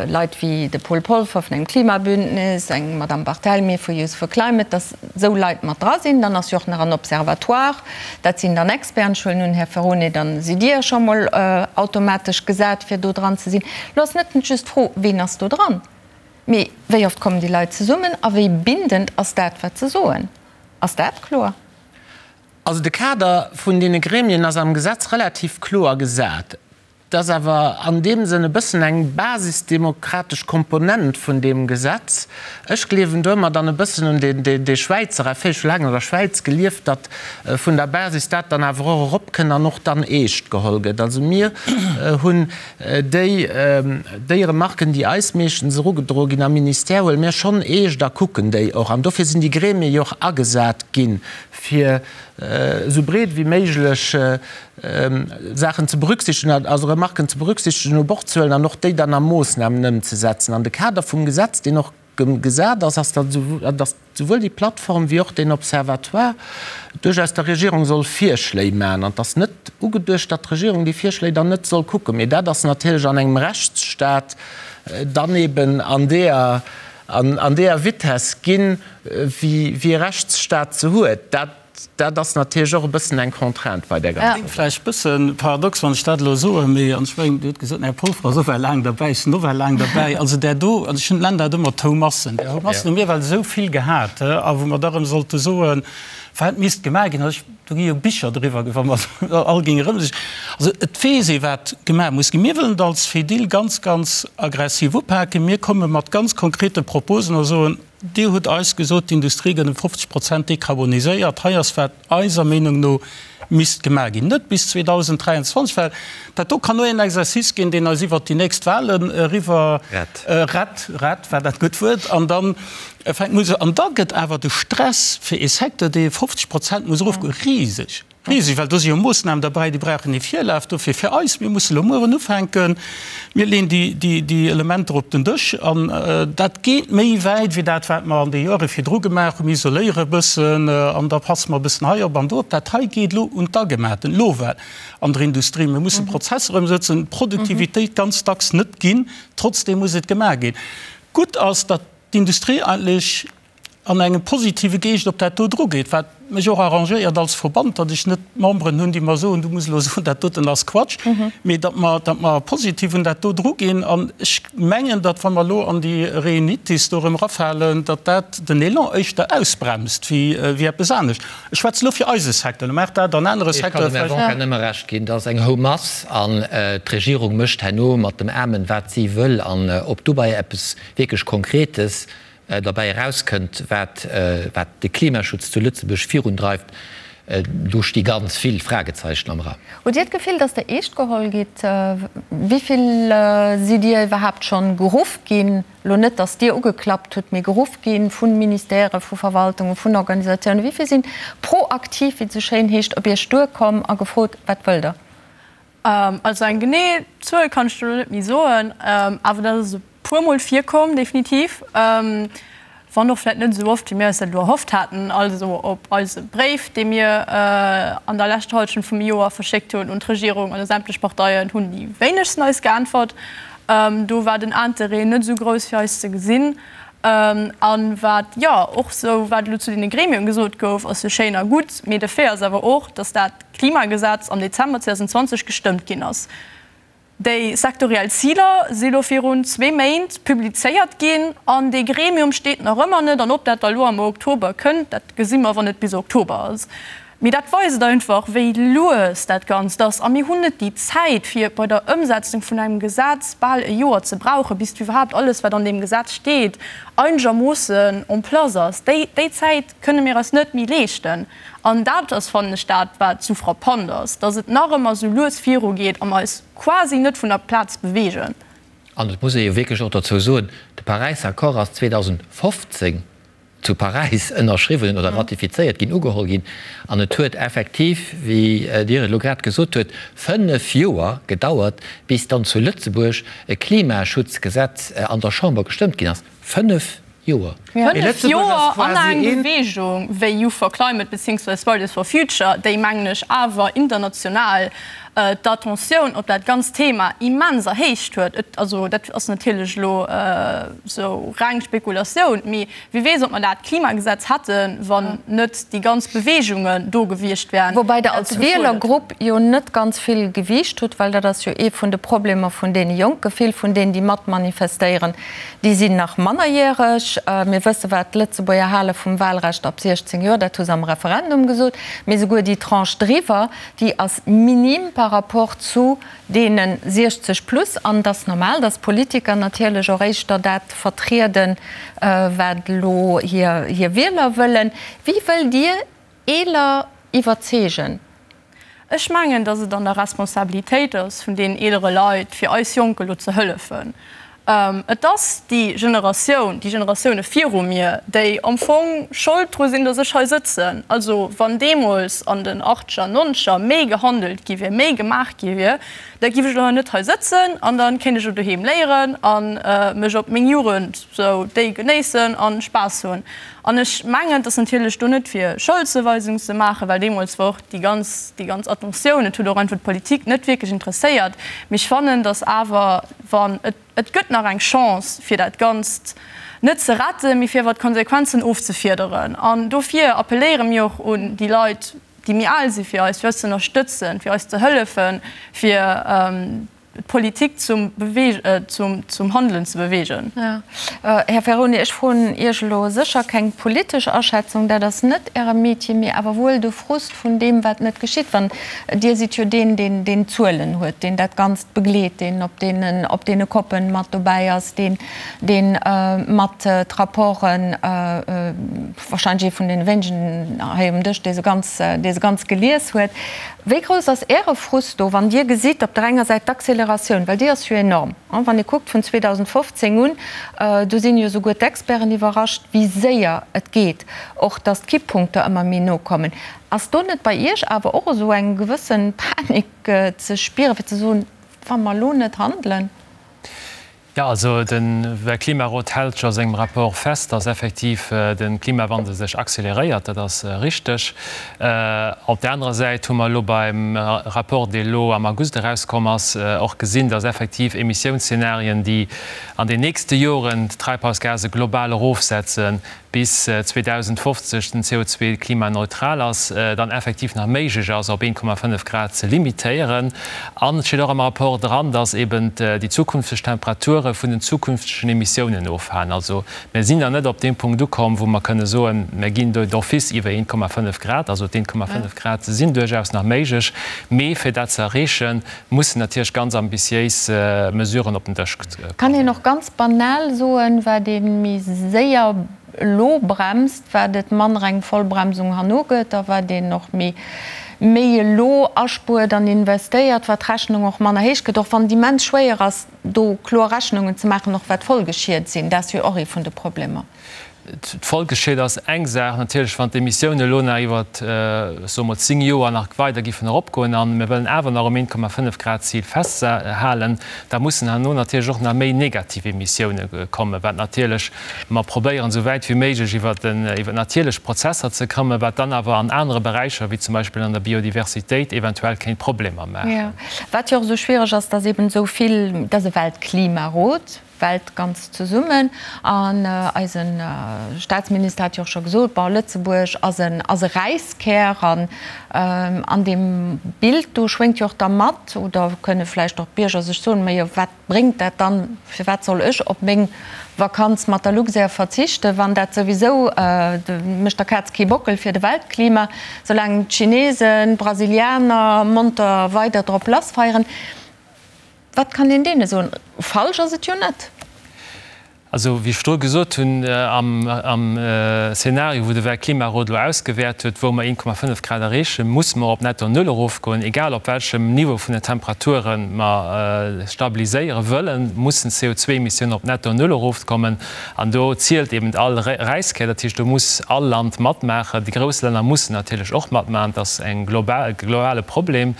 Leit wéi de Paul Polfer vun engem Klimabündnis, eng Madame Barthelmy vu Youth for Climate, datt esou Leit mat dra sinn. Dann ass jo och nach en Observatoire, dat sinn dann Experten. Ech huelen un, Här Ferone, da sidd Dir scho mol automatesch gesat, fir do dran ze sinn. Elo ass net just d'Fro, ween ass do dran, mee wéi oft kommen déi Leit zesummen a wéi bindend ass dat, wat se soen? Ass dat kloer? Also de Kader vun deene Gremien ass am Gesetz relativ kloer gesat. Et ass awer an deem Sënn e bëssen eng basisdemokratesch Komponent vun deem Gesetz. Ech gleewen do ëmmer dann e bëssen un dee Schwäizer Effet, ech hu laang an der Schwäiz gelieft, datt vun der Basis dat dann awer och eropkënnt an och dann eescht geholl gëtt. Also mir hunn déi, déi Remarken, déi eis meeschtens erugedroe ginn am Ministère, huele mir schonn eescht a kucken déi och. An dofir sinn déi Gremie jo och agesat ginn, fir esou breet wéi méiglech Saachen ze berücksichtegen, also Remarken ze berücksichtegen, u Bord ze huelen an och déi dann a Moossnamen ëmzesetzen. An de Kader vum Gesetz, deen och gesat ass, ass, datt souwuel déi Plattform wéi och deen Observatoire duerchaus der Regierung soll Virschléi maachen. An et ass net ugeduecht, datt d'Regierung déi Virschléi dann net soll kucken. Mee dat ass natierlech an engem Rechtsstat dann eben an deeër, an deeër Vitesse ginn, wéi e Rechtsstaat se huet. Dat, dat ass natierlech och e bëssen eng Contrainte bei där ganzer. Kléngt vläicht e bësse paradox, wann ech dat elo soen, mee, an ech mengen, Dir hutt gesot, den Här Polfer ass och well laang derbäi, ech sinn och well laang derbäi, also där do, also ech nennen dat ëmmer d'Houmassen, där Houmassen hu mir well esou vill gehat, a wou mer da erëm sollte soen, wat misst gemaach ginn. Also ech, do gi jo Bicher driwwer, wa mer all géinge erëm sech, also et weess ee wat gemaach muss ginn. Mir wëllen et als Fedil ganz, ganz aggressiv upaken. Mir komme mat ganz konkrete Proposen a soen, Dir hutt eis gesot, d'Industrie gëtt ëm 50 Prozent dekarboniséiert. Hei ass, wat eiser Meenung no misst gemaach ginn. Net bis 2023, well dat do kann nur een Exercice ginn, deen eis iwwert déi nächst Wahlen eriwwer rett, rett war dat gutt Wuert, an da fänkt muss, an da gëtt awer de Stress fir ee Secteur, dee 50 Prozent muss erofgoen, riseg. Riseg, well do si jo Moossnamen derbäi, déi brauchen ee Virlaf. Dofir fir eis, mir musse lo mueren ufänken, mir leeën déi Elementer op den Dësch an dat geet méi wäit wéi dat, wat mer an de Joere virdru gemaach hunn. Mir isoléiere e bëssen an da passe mer e bëssen hei op an do op. Dat hei geet elo un d'Agematen, elo well an der Industrie. Mir musse Prozesser ëmsëtzen, d'Produktivitéit ganz dacks net ginn, trotzdeem muss et gemaach ginn. Gutt ass, datt d'Industrie eigentlech an engem positive Geescht op dat do drugeet, wat. mech och arrangéiert als Verband, datt ech net Memberen hunn, déi mer soen, du muss elo soen, dat doten ass Quatsch, mee datt mer, datt mer positiv un dat do druginn. An ech mengen, datt wa mer elo an déi Reunitis do erëm erafalen, datt dat den Elan éischter ausbremst wéi, wéi eppes anescht. Ech schwätze elo fir eise Secteur, lo mag dat an anere Ech kann Secteure dem Här vläicht. Wonka nëmme Recht ginn, dat ass eng Houmass an d'Regierung mécht herno mat dem Amen, wat si wëll. An ob dobäi eppes wierklech Konkretes derbäi erauskënnt, wat de Klimaschutz zu Lëtzebuerg virundreift, do sti ganz vill Fragezeichen am Raum. Hutt Dir d'Gefill, datt Der eescht geholl gitt? Wéi vill sidd Dir iwwerhaapt schonn geruff ginn, elo net, datt Dir ugeklappt hutt, mee geruff gi vu Ministèrë, vu Verwaltungen, vun Organisatiounen? Wéi vill sinn proaktiv, wéi et esou schéin heescht, op Iech duerkomm a gefrot, Wat wëllt Der? Also eng genee Zuel kann ech der elo net méi soen, awer dat ass e puermol virkomm, definitiv. Wann och vläicht net esou oft, wéi mir eis dat elo erhofft haten. Also op eise Bréif, dee mir an der leschter Hallschent vum Joer verschéckt hunn un d'Regierung an u sämtlech Parteien, hunn déi wéinegsten eis geäntwert. Do war den Interêt net esou grouss, fir eis ze gesinn. A wat, jo, och esou, wat elo zu deene Gremien gesot gouf, ass jo schéin a gutt, mee de Fait ass awer och, datt dat Klimagesetz am Dezember 2020 gestëmmt ginn ass. Déi sektoriell Ziler si lo virun zwee Méint publizéiert ginn an dee Gremium steet nach ëmmer net. An ob dat da lo am Oktober kënnt, dat gesi mer, wann et bis Oktober ass. Mee dat weist einfach, wéi lues dat Ganzt ass. A mir hunn net déi Zäit, fir bei der Ëmsetzung vun engem Gesetz bal e Joer ze brauchen, bis iwwerhaapt alles, wat an deem Gesetz steet, einegermoossen en place ass. Déi Zäit kënne mir eis net méi leeschten. An dat ass, fannen ech, dat, wat esou frappant ass, dass et nach ëmmer esou lues virugeet a mer eis quasi net vun der Plaz beweegen. An et muss ee jo wierklech och dozou soen, de Paräisser Accord ass 2015 zu Paräis ënnerschriwwen oder ratifizéiert ginn, ugeholl ginn. An et huet effektiv, wéi Dir et elo grad gesot huet, fënnef Joer gedauert, bis dann zu Lëtzebuerg e Klimaschutzgesetz an der Chamber gestëmmt ginn ass. Fënnef Joer. Fënnef Joer an eng Beweegung wéi Youth for Climate beziéungsweis Fridays for Future, déi, mengen ech, awer international d'Attentioun op dat ganzt Thema immens erhéicht huet. Et, also dat ass natierlech elo esou reng Spekulatioun, mee wie weess, ob mer dat Klimagesetz hätten, wann net déi ganz Beweegungen do gewiescht wären. Woubäi Der als Wielergrupp jo net ganz vill Gewiicht hutt, well dat ass jo ee vun de Problemer vun deene Jonken. Vill vun deenen, déi mat manifestéieren, Déi sinn nach mannerjäreg. Mir wësse wat d'Lëtzebuerger hale vum Wahlrecht ab 16 Joer, dat hu se am Referendum gesot. Mee souguer déi Tranche driwwer, déi ass minim par rapport zu deene 60 plus. An et ass normal, datt d'Politiker natierlech och éischter dat vertrieden, wat elo hir Wieler wëllen. Wéi wëllt Dir Eeler iwwerzeegen? Ech mengen, datt et an der Responsabilitéit ass vun deenen eelere Leit, fir eis Jonk elo ze hëllefen. Et ass déi Generatioun, déi Generatioune viru mir, déi am Fong Schold dru sinn, datt ech hei sëtzen. Also wann deemools an den Achtscher, Nonzeger méi gehandelt gi wier, méi gemaach gi wier, da giff ech elo hei net hei sëtzen an da kéint ech elo doheem léieren a mech op meng Jugend sou déi genéissen a Spaass hunn. An ech mengen, et ass natierlech do net fir Scholdzuweisung ze maachen, well deemools war och déi ganz, déi ganz Attentioun, et huet och einfach d'Politik net wierklech interesséiert. Mee ech fannen, datt awer, wann, et, et gëtt nach eng Chance fir dat Ganzt net ze retten, mee fir awer d'Konsequenzen ofzefiederen. An dofir appelléiere mir och un déi Leit, déi méi al si fir eis, fir eis ze ënnerstëtzen, fir eis ze hëllefen, fir d'Politik zum zum Handelen ze beweegen. Här Ferroni, ech froen Iech elo sécher keng politesch Aschätzung, dat ass net Äre Metier, mee awer wuel de Frust vun deem, wat net geschitt. Wann, Dir sidd jo deen, deen deen d'Zuelen huet, deen dat Ganzt begleet, deen op deenen op deene Koppen mat dobäi ass, deen deen mat d'Rapporten, wahrscheinlech ee vun deene wéinegen hei um Dësch, dee se ganz, dee se ganz gelies huet. Wéi grouss ass Äre Frust do, wann Dir gesitt op der enger Säit d'Acceleratioun, well déi ass jo enorm, wann ee kuckt vun 2015 un, do sinn jo souguer d'Experten iwwerrascht, wéi séier et geet, och datt d'Kipppunkter ëmmer méi no kommen. Ass do net bei Iech awer och esou eng gewësse Panik ze spieren, fir ze soen, wa mer elo net handelen? Jo, also de Weltklimarot hält jo a sengem Rapport fest, dass effektiv de Klimawandel sech acceleréiert. Dat ass richteg. Op där anerer Säit hu mer elo beim Rapport, dee elo am August erauskomm ass, och gesinn, dass effektiv Emissiounsszenarien, déi an den nächste Joren d'Treibhausgase global erofsetzen, bis 2050 den CO2 klimaneutral ass, dann effektiv nach méiglech ass, op 1,5 Grad ze limitéieren. An et steet och am Rapport dran, dass eben déi zukünfteg Temperature vun den zukünftegen Emissiounen ofhalen. Also mir sinn nach net op deem Punkt ukomm, wou mer kënne soen, mir ginn do d'office iwwer 1,5 Grad. Also d'1,5 Grad sinn duerchaus nach méiglech, mee fir dat ze erreechen, mussen natierlech ganz ambitiéis Mesuren op den Dësch kommen. Kann een och ganz banal soen, wat ee méi séier elo bremst, wat et manner eng Vollbremsung herno gëtt, a wat een och méi méi elo aspuert an investéiert, wat d'Rechnung och manner héich gëtt, och wann et immens schwéier ass, do kloer Rechnungen ze maachen, och wat d'Folgeschied sinn. Dat ass jo och ee vun de Problemer. D'Folgeschied ass eng Saach natierlech, wann d'Emissiounen elo nach iwwer, soe mer, 10 Joer nach weider giffen eropgoen a mir wëllen awer nach um 1,5 Grad Zil festhalen, da mussen herno natierlech och nach méi negativ Emissioune kommen, wat natierlech mer probéieren, esou wäit wéi méiglech iwwer natierlech Prozesser ze kommen, wat dann awer an anere Beräicher, wéi zum Beispill an der Biodiversitéit, eventuell kéint Problemer maachen. Wat jo och esou schwiereg ass, dass eben esou vill, dass e Weltklimarot, Welt ganz zesummen. An eise Staatsminister hat jo och scho gesot, bon, Lëtzebuerg ass en, ass e Räiskär. An an deem Bild do schwéngt jo och da mat, oder kënne vläicht och d'Bierger sech soen, majo wat bréngt dat dann, firwat soll ech op meng Vakanz mat der Luxair verzichten, wann dat souwisou, mécht der Kaz kee Bockel fir de Weltklima, soulaang d'Chinesen, d'Brasilianer monter weider drop lassfeieren. Wat kann een deene soen? Falsch ass et jo net. Also, wéi ech virdru gesot hunn, am Szenario, wou de Weltklimarot elo ausgewäert huet, wou mer 1,5 Grad erreechen, musse mer op netto Null erofgoen. Egal op welchem Niveau vun den Temperature mer stabiliséiere wëllen, mussen d'CO2-Emissiounen op netto Null erofkommen. An do zielt eben all Räiskär. Dat heescht, do muss all Land matmaachen. Déi grouss Länner mussen natierlech och matmaachen. Et ass e globale Problem.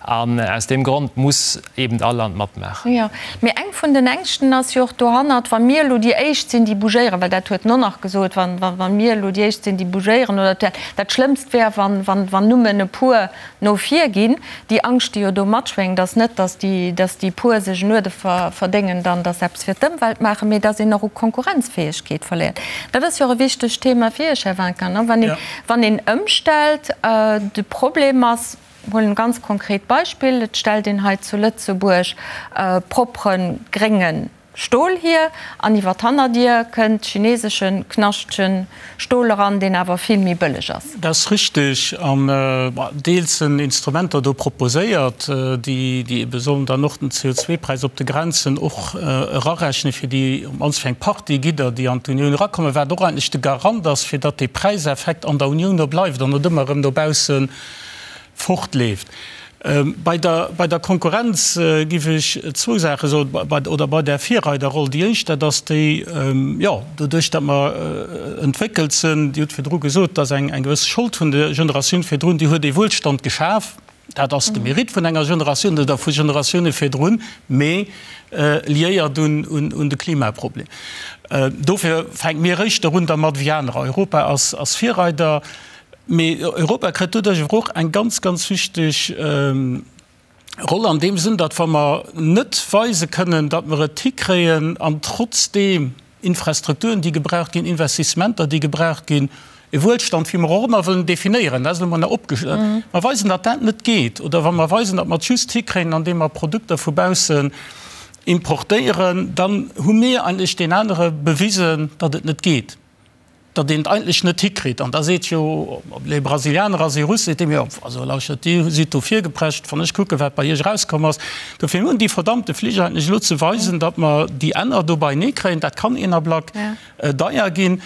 An aus deem Grond muss eben all Land matmaachen. Jo, mee eng vun den Ängschten ass jo och dohannert, wa mir elo déi Éischt sinn, déi bougéieren, well dat huet en och nach gesot, wa, wa mir elo déi Éischt sinn, déi bougéieren, oder dat Schlëmmst wär, wann, wann, wann nëmmen e puer no vir ginn. Déi Angscht, déi jo do matschwéngt, ass net, datt déi, datt déi puer sech en Uerde verdéngen dann, datt se eppes fir d'Ëmwelt maachen, mee datt een och u Konkurrenzfäegkeet verléiert. Dat ass jo och e wichtegt Thema fir Iech, Här Winkin, ne, wann een, wann een ëmstellt. De Problem ass, Huelen e ganz konkret Beispill, Et stellt een hei zu Lëtzebuerg propre grénge Stol hier an iwwer d'Hannerdier kënnt chinesesche knaschtege Stol eran, deen awer vill méi bëlleg ass. Dat ass richteg. An deels sinn Instrumenter do proposéiert, déi ebe sollen dann och den CO2-Präis op de Grenzen och erarechnen, fir déi, op d'mannst fir eng Partie Gidder, déi an d'Unioun erakommen, wat och eigentlech de Garant ass, fir datt dee Präiseffekt an der Unioun do bleift an net ëmmer erëm dobaussen fortleeft. Bei der, bei der Konkurrenz géif ech zwou Saache soen, bei, oder bei där Virreiderroll. Déi éischt, dat ass déi, jo, doduerch datt mer entwéckelt sinn, Dir hutt virdru gesot, et ass eng, eng gewëss Schold vun der Generatioun virdrun, déi huet ee Wuelstand geschaf. Dat ass de Mérite vun enger Generatioun oder vu Generatioune virdrun, mee liéiert un, un, un de Klimaproblem. Dofir fänke mir éischter un dermat wéi anerer. Europa ass, ass Virreider. Mee Europa kritt doduerch awer och eng ganz, ganz wichteg Roll an deem Sënn, datt wa mer net weise kënnen, datt mer et hikréien an trotzdeem Infrastrukturen, déi gebraucht ginn, Investissementer, déi gebraucht ginn, e Wuelstand, wéi mer och ëmmer wëllen definéieren, dat ass elo mol nach opge-, mer weisen, datt dat net geet, oder wa mer weisen, datt mer et just hikréien, andeem mer Produkter vu baussen importéieren, dann hu mir eigentlech deen anere bewisen, datt et net geet. datt een et eigentlech net hikritt. An da seet jo, ob et e Brasilianer ass, ee Russ, seet deem, jo, also lauschtert, Dir sidd do virgeprescht, wann ech kucken, wat bei Iech erauskomm ass. Dofir hunn déi verdammte Flich eigentlech elo ze weisen, datt mer déi Enner do beienee kréien. Dat kann een Ablack deier ginn.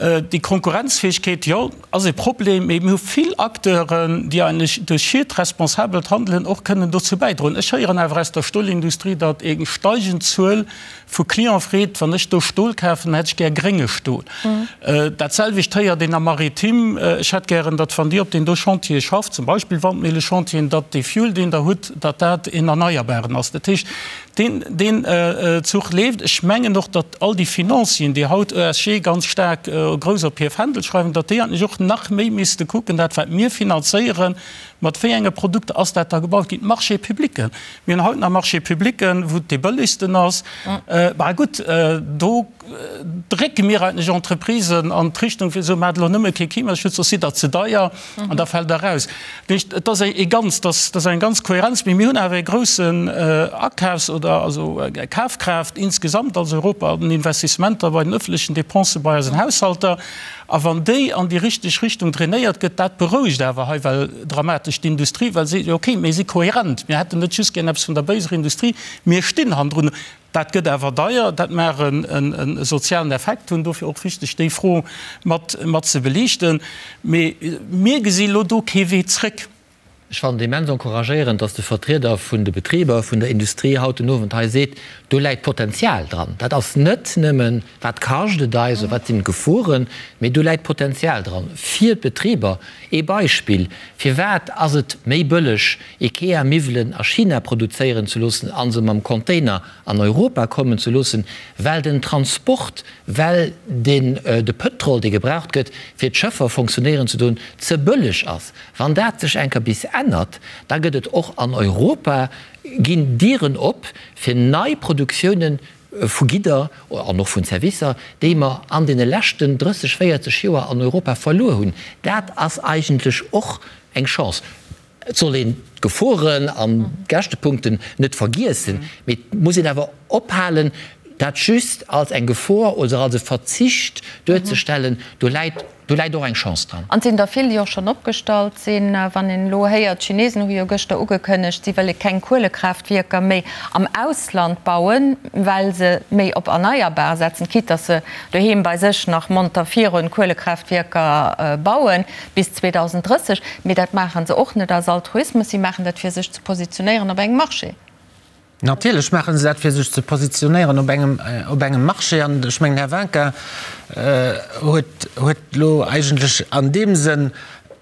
Déi Konkurrenzfäegkeet, jo, ass e Problem, mee mir hu vill Acteuren, déi eigentlech duerch hiert responsabelt Handelen och kënnen dozou bäidroen. Ech héieren awer aus der Stolindustrie, datt eng steigend Zuel Vu Client freet, wann ech do Stol kafen, hätt ech gär grénge Stol. Dat selwecht héiert een am Maritime, ech hätt gären, datt wann Dir op deen do Chantiere schafft, zum Beispill Wandmillechantieren, datt dee Fuel, deen Der hutt, datt dat een erneierbaren ass. Dat heescht, Deen, deen Zuch leeft. Ech mengen och, datt all déi Financieren, déi haut ESG ganz staark grouss op hir Fändel schreiwen, datt déi eigentlech och nach méi misste kucken, dat wat mir finanzéieren, mat wéi enge Produkter ass dat da gebaut ginn. D'Marchés publics, mir hunn haut nach Marchés publics, wou et dee bëllegsten ass. Bah gutt, do drécke mir eigentlech Entreprisen an d'Richtung fir ze soen, maacht elo nëmme kee Klimaschutz, soss sidd Der ze deier an da fält Der eraus. Dat heescht, et ass e ganz, dat ass eng ganz Kohärenz, mee mir hunn awer e groussen Akafs oder also Kafkraaft insgesamt als Europa an den Investissementer bei den öffentlechen Dépensen bei eisen Haushalter. A wann déi an déi richteg Richtung drainéiert gëtt, dat berouegt awer hei well dramatesch d'Industrie, well se seet, okay, mir si kohärent, mir hätten net just gär eppes vun der béiser Industrie, mir stinn hannendrun. Dat gëtt awer deier, dat mag e sozialen Effekt hunn, dofir och wichteg, déi Fro mat mat ze beliichten. Mee mir gesi lo do kee Wee zréck. Ech fannen et immens encouragéierend, dass de Vertrieder vun de Betriber, vun der Industrie haut den Owend hei seet, do läit Potenzial dran. Dat ass net nëmmen, wat kascht et eis oder wat sinn d'Geforen, mee do läit Potenzial dran fir d'Betriber. Ee Beispill, Firwat ass et méi bëlleg, Ikea-Miwwelen a China produzéieren ze loossen a se mam Container an Europa kommen ze loossen, well den Transport, well den de Pëtrol, dee gebraucht gëtt, fir d'Schëffer fonctionnéieren ze doen, ze bëlleg ass. Wann dat sech eng Kéier bis ännert, da gëtt et och an Europa, ginn Dieren op fir nei Produktiounen vu Gidder an och vun Servicer, déi mer an deene leschten 30, 40 Joer an Europa verluer hunn. Dat ass eigentlech och eng Chance. Et soll een d'Geforen an d'Käschtepunkten net vergiessen, mee et muss een awer ophalen, dat just als eng Gefor oder als e Verzicht duerzestellen. Do läit, do läit och eng Chance dran. An et sinn der vill, déi och schonn opgestallt sinn. Wann een elo héiert, d'Chinesen hu jo gëschter ugekënnegt, si wëlle keng Kuelekraaftwierker méi am Ausland bauen, well se méi op erneierbar setzen, quitte datt se doheem bei sech nach monter virun Kuelekraaftwierker bauen. Bis 2030, mee dat maache se och net aus Altruismus, si maachen dat fir sech ze positionéieren op engem Marché. Natierlech maache se dat fir sech ze positionéieren op engem, op engem Marché. An ech mengen, Här Winkin huet, huet elo eigentlech an deem Sënn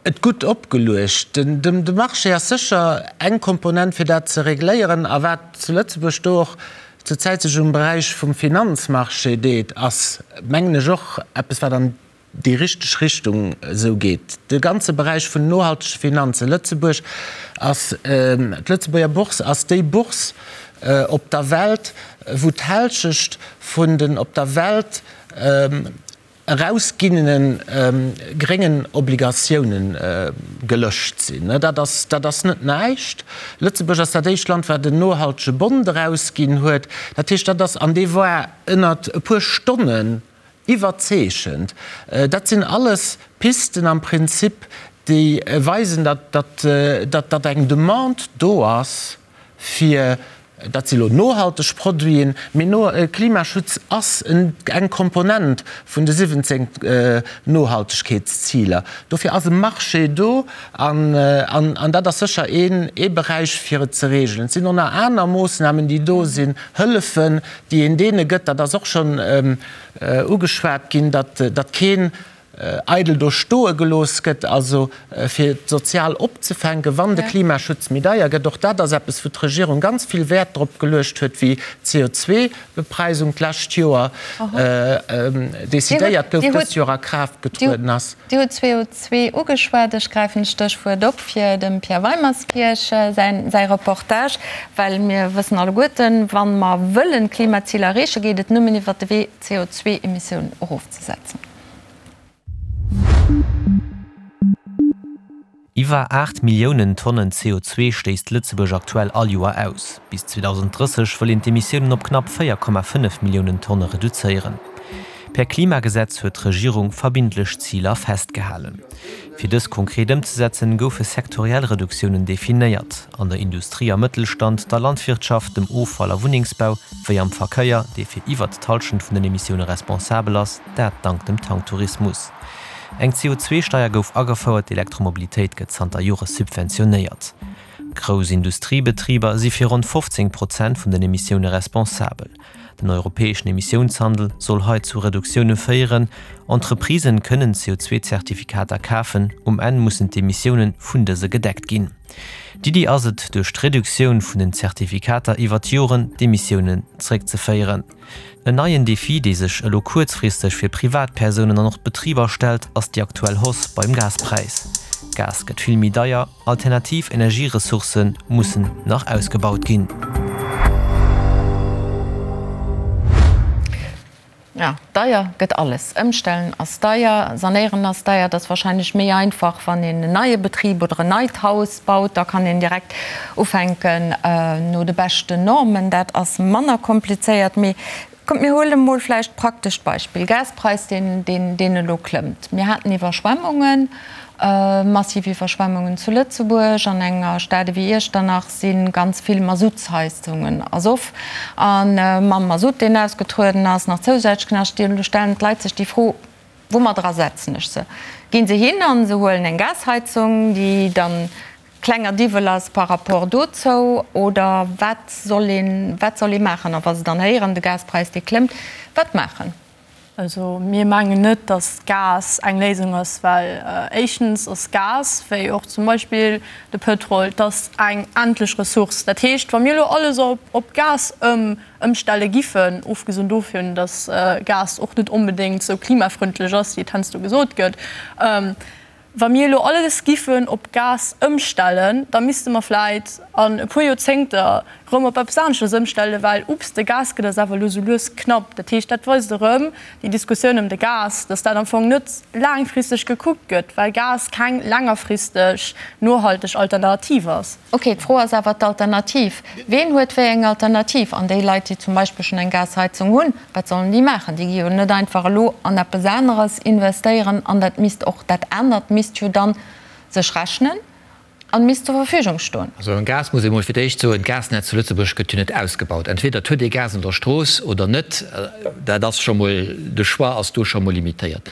et gutt opgeluecht. Den, de Marché ass sécher eng Komponent fir dat ze regléieren. A wat zu Lëtzebuerg do och zur Zäit sech um Beräich vum Finanzmarché deet, ass, mengen ech, och eppes wat an déi richteg Richtung esou geet. De ganze Beräich vun nohaltege Finanzen, Lëtzebuerg ass, d'Lëtzebuerger Bourse ass déi Bourse op der Welt, wou d'Hälschecht vun den op der Welt erausginnene gréngen Obligatiounen gelëscht sinn. Dat ass, dat ass net näischt. Lëtzebuerg ass dat éischt Land, wat en nohaltege Bond erausginn huet. Dat heescht, dat ass, an dee war ënnert e puer Stonnen Iwwerzeechend. Dat sinn alles Pisten am Prinzip, déi weisen, datt eng Demande do ass fir, dat si lo nohalteg Produiten, mee Klimaschutz ass eng Komponent vun de 17 Nohaltegkeetsziler. Dofir ass e Marché do an dat ass sécher ee Beräich, fir et ze reegelen. Et sinn och nach aner Moossnamen, déi do sinn, Hëllefen, déi een deene gëtt, dat ass och schonn ugeschwat ginn, datt keen eidel do stoe gelooss gëtt, also fir d'sozial opzefänken, wann de Klimaschutz méi deier gëtt. Och dat ass eppes, wou d'Regierung ganz vill Wäert drop geluecht huet, wéi d'CO2-Bepreisung d'lescht Joer decidéiert gouf, dëst Joer a Kraaft getrueden ass. Dir hutt CO2 ugeschwat. Ech gräifen d'Stéchwuert op fir dem Pierre Weimerskirch säi Reportage, well mir wëssen alleguerten, wa mer wëllen d'Klimaziler erreechen, geet et nëmmen iwwert de Wee, d'CO2-Emissiounen erofzesetzen. Iwwer 8 Milliounen Tonnen CO2 stéisst Lëtzebuerg aktuell all Joer aus. Bis 2030 wëll een d'Emissiounen op knapp 4,5 Milliounen Tonne reduzéieren. Per Klimagesetz huet d'Regierung verbindlech Ziler festgehalen. Fir dës konkret ëmzesetzen, goufe sektoriell Reduktiounen definéiert, an der Industrie a Mëttelstand, der Landwirtschaft, dem Offall a Wunnengsbau, wéi am Verkéier, dee fir iwwert d'Hallschent vun den Emissioune responsabel ass, dat dank dem Tanktourismus. Eng CO2-Steier gouf agefouert, d'Elektromobilitéit gëtt zanter Jore subventionéiert. Grouss Industriebetriber si fir ronn 15 Prozent vun den Emissioune responsabel. Den europäeschen Emissiounshandel soll hei zu Reduktioune féieren. Entreprisen kënnen CO2-Zertifikater kafen, um Enn mussen d'Emissioune vun dëse gedeckt ginn. D'Iddi ass et, duerch d'Reduktioun vun den Zertifikater iwwer d'Joren d'Emissiounen zeréckzeféieren. En neien Defi, dee sech elo kuerzfristeg fir Privatpersounen an och d'Betriber stellt, ass déi aktuell Hausse beim Gaspräis. Gas gëtt vill méi deier, alternativ Energieressourcë mussen nach ausgebaut ginn. Jo, deier gëtt alles. Ëmstellen ass deier, sanéieren ass deier. Et ass wahrscheinlech méi einfach, wann een en neie Betrib oder en neit Haus baut. Da kann een direkt ufänken no de beschten Normen. Dat ass manner komplizéiert. Mee kommt, mir huele mol vläicht praktescht Beispill, Gaspräis, deen, deen elo klëmmt. Mir haten Iwwerschwemmungen. Massiv Iwwerschwemmungen zu Lëtzebuerg. An enger Stad ewéi Iechternach si ganz vill Masuttsheizungen ersoff. A mam Masutt, deen ausgetrueden ass, nach zousätzlech Knascht. Elo stellen d'Leit sech déi Fro, Woumat ersetzen ech se? Ginn se hin a se huelen eng Gasheizung, déi dann klenger Diwwel ass par rapport dozou? Oder wat soll een, wat soll ee maachen? A wa se dann héieren, de Gaspräis, dee klëmmt, wat maachen? Also mir mengen net, datt Gas eng Léisung ass, well éischtens ass Gas, wéi och zum Beispill de Pëtrol, et ass eng endlech Ressource. Dat heescht, wa mir elo alles op Gas ëmstelle giffen, ofgesinn dovun, datt Gas och net onbedéngt esou klimafrëndlech ass, wéi et heiansdo gesot gëtt, Wa mir elo alles giffen op Gas ëmstellen, da misste mer vläit an e puer Joerzéngter erëm op eppes aneschters ëmstellen, well, ups, de Gas gëtt eis awer elo sou lues knapp. Dat heescht, dat weist erëm déi Diskussioun ëm de Gas, dass dat am Fong net laangfristeg gekuckt gëtt, well Gas keng längerfristeg nohalteg Alternativ ass. Ok, d'Fro ass awer d'Alternativ. Ween huet wéi eng Alternativ? An déi Leit, déi zum Beispill schonn eng Gasheizung hunn, Wat sollen déi maachen? Déi gi jo net einfach elo an eppes aneres investéieren an dat misst och, dat anert misst jo dann sech rechnen an misst zur Verfügung stoen. Also beim Gas muss ee mol fir d'éischt soen, d'Gasnetz zu Lëtzebuerg gëtt jo net ausgebaut. Entweder et huet ee Gas an der Strooss oder net. Dat ass scho mol, de Choix ass do scho mol limitéiert.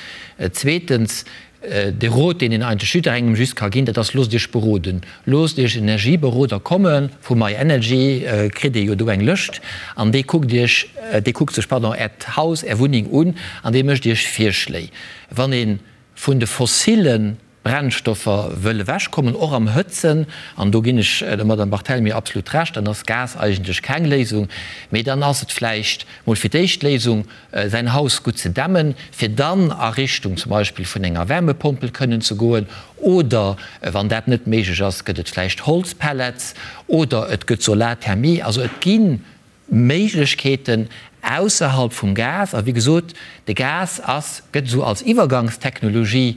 Zweetens, De Rot, deen een eigentlech jidderengem just ka ginn, dat ass, Loosst Iech beroden. Loosst Iech en Energieberoder komme vu myenergy, kritt Dir jo do eng Lëscht, an dee kuckt Iech, dee kuckt sech, pardon, Äert Haus, Är Wunneng un an dee mécht Iech Virschléi. Wann ee vun de fossille Brennstoffer wëll ewechkommen, och am Hëtzen, an do ginn ech der Madame Barthelmy absolut Recht, dann ass Gas eigentlech keng Léisung, mee dann ass et vläicht mol fir d'éischt d'Léisung, säin Haus gutt ze dämmen, fir dann a Richtung zum Beispill vun enger Wärmepompel kënnen ze goen, oder wann dat net méiglech ass, gëtt et vläicht Holzpellets oder et gëtt Solarthermie. Also et gi Méiglechkeeten ausserhalb vum Gas. A wéi gesot, de Gas ass, gëtt esou als Iwwergangstechnologie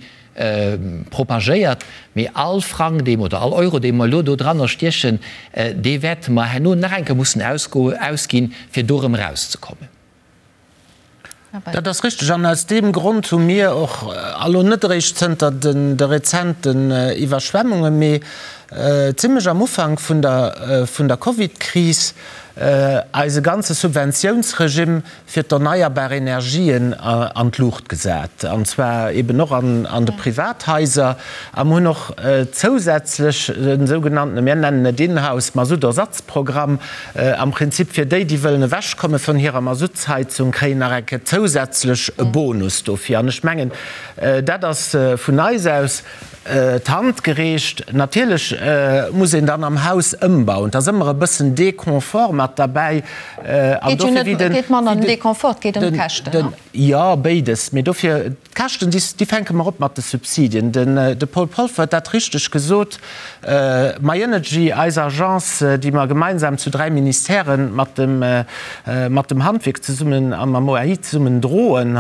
propagéiert, mee all Frang, dee mer, oder all Euro, dee mer elo do dranner stiechen, dee wäerte mer herno nach eng Kéier mussen ausginn, fir do erëm erauszekommen. Dat ass richteg. An aus deem Grond hu mir och, a lo net eréischt zënter de rezenten Iwwerschwemmungen, mee zimlech am Ufank vun der Covidkris, eise ganze Subventiounsregimm fir d'erneierbar Energien an d'Luucht gesat, an zwar eben och an de Privathaiser. A mir hunn och zousätzlech e sougenannten, mir nennen et Inhouse Masuttersatzprogramm, Am Prinzip fir déi, déi wëllen ewechkomme vun hirer Masuttsheizung, kréien nach eng Kéier zousätzlech e Bonus dofir. An ech mengen, dat ass vun eis aus d'Hand gereecht. Natierlech muss een dann am Haus ëmbauen. Et ass ëmmer e bëssen Deconfort mat derbäi. An dofir, wéi den. Et geet manner ëm Deconfort, et geet ëm d'Käschten. Jo, béides. Mee dofir, d'Käschten, déi fänke mer op mat de Subsidien. De Paul Polfer huet dat richteg gesot. MyEnergy, eis Agence, déi mer gemeinsam zu 3 Ministèren mat dem, mat dem Handwierk zesummen a mam OAI zesummen droen,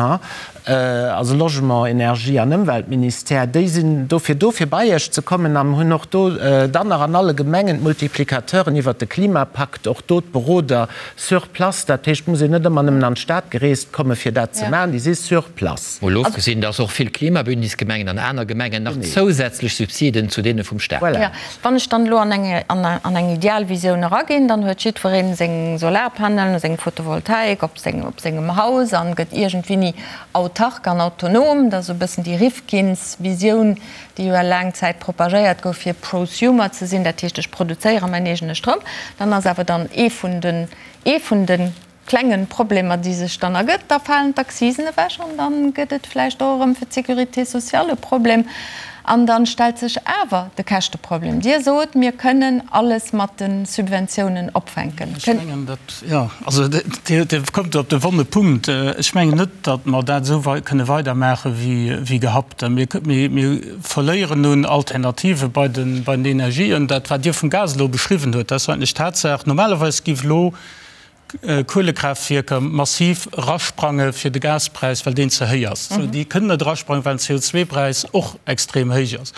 also Logement, Energie an Ëmweltministère, déi sinn dofir do, fir bei Iech ze kommen an hunn och do dann nach an alle Gemengen d'Multiplicateuren iwwert de Klimapakt, och do d'Berodung. Beroder sur place. Dat heescht, et muss een net ëmmer nëmmen an d'Stad gereest komme fir dat ze maachen, déi si sur place. Mol ofgesinn, dass och vill Klimabündnisgemengen an aner Gemengen nach zousätzlech Subsiden zu deene vum Staat. Voilà. Wann ech dann elo an eng, an eng Idealvisioun eraginn, dann huet jiddweree seng Solarpanelen, seng Photovoltaik op seng, op sengem Haus an gëtt iergendwéini autark an autonom. Dat ass esou e bëssen déi Rifkins-Visioun, déi jo laang Zäit propagéiert gouf, fir Prosumer ze sinn, dat heescht, ech produzéiere mäin eegene Stroum. Dann ass awer dann ee vun den, ee vun de klengen Problemer, déi sech dann ergëtt, da falen d'Accisen ewech an da gëtt et vläicht och erëm fir d'Sécurité sociale e Problem. An da stellt sech awer de Käschteproblem. Dir sot, mir kënnen alles mat de Subventiounen opfänken. Ech mengen, dat, jo, also Dir kommt do op de wonne Punkt. Ech mengen net, datt mer dat esou kënne weidermaache wéi gehabt. Mir verléieren un Alternative bei den Energien. Dat, wat Dir vum Gas elo beschriwwen huet, dat ass eigentlech d'Tatsaach. Normalerweis géif elo Kuelekraaftwierker massiv erasprange fir de Gaspräis, well deen ze héich ass. Déi kënnen net erasprangen, well den CO2-Präis och extrem héich ass.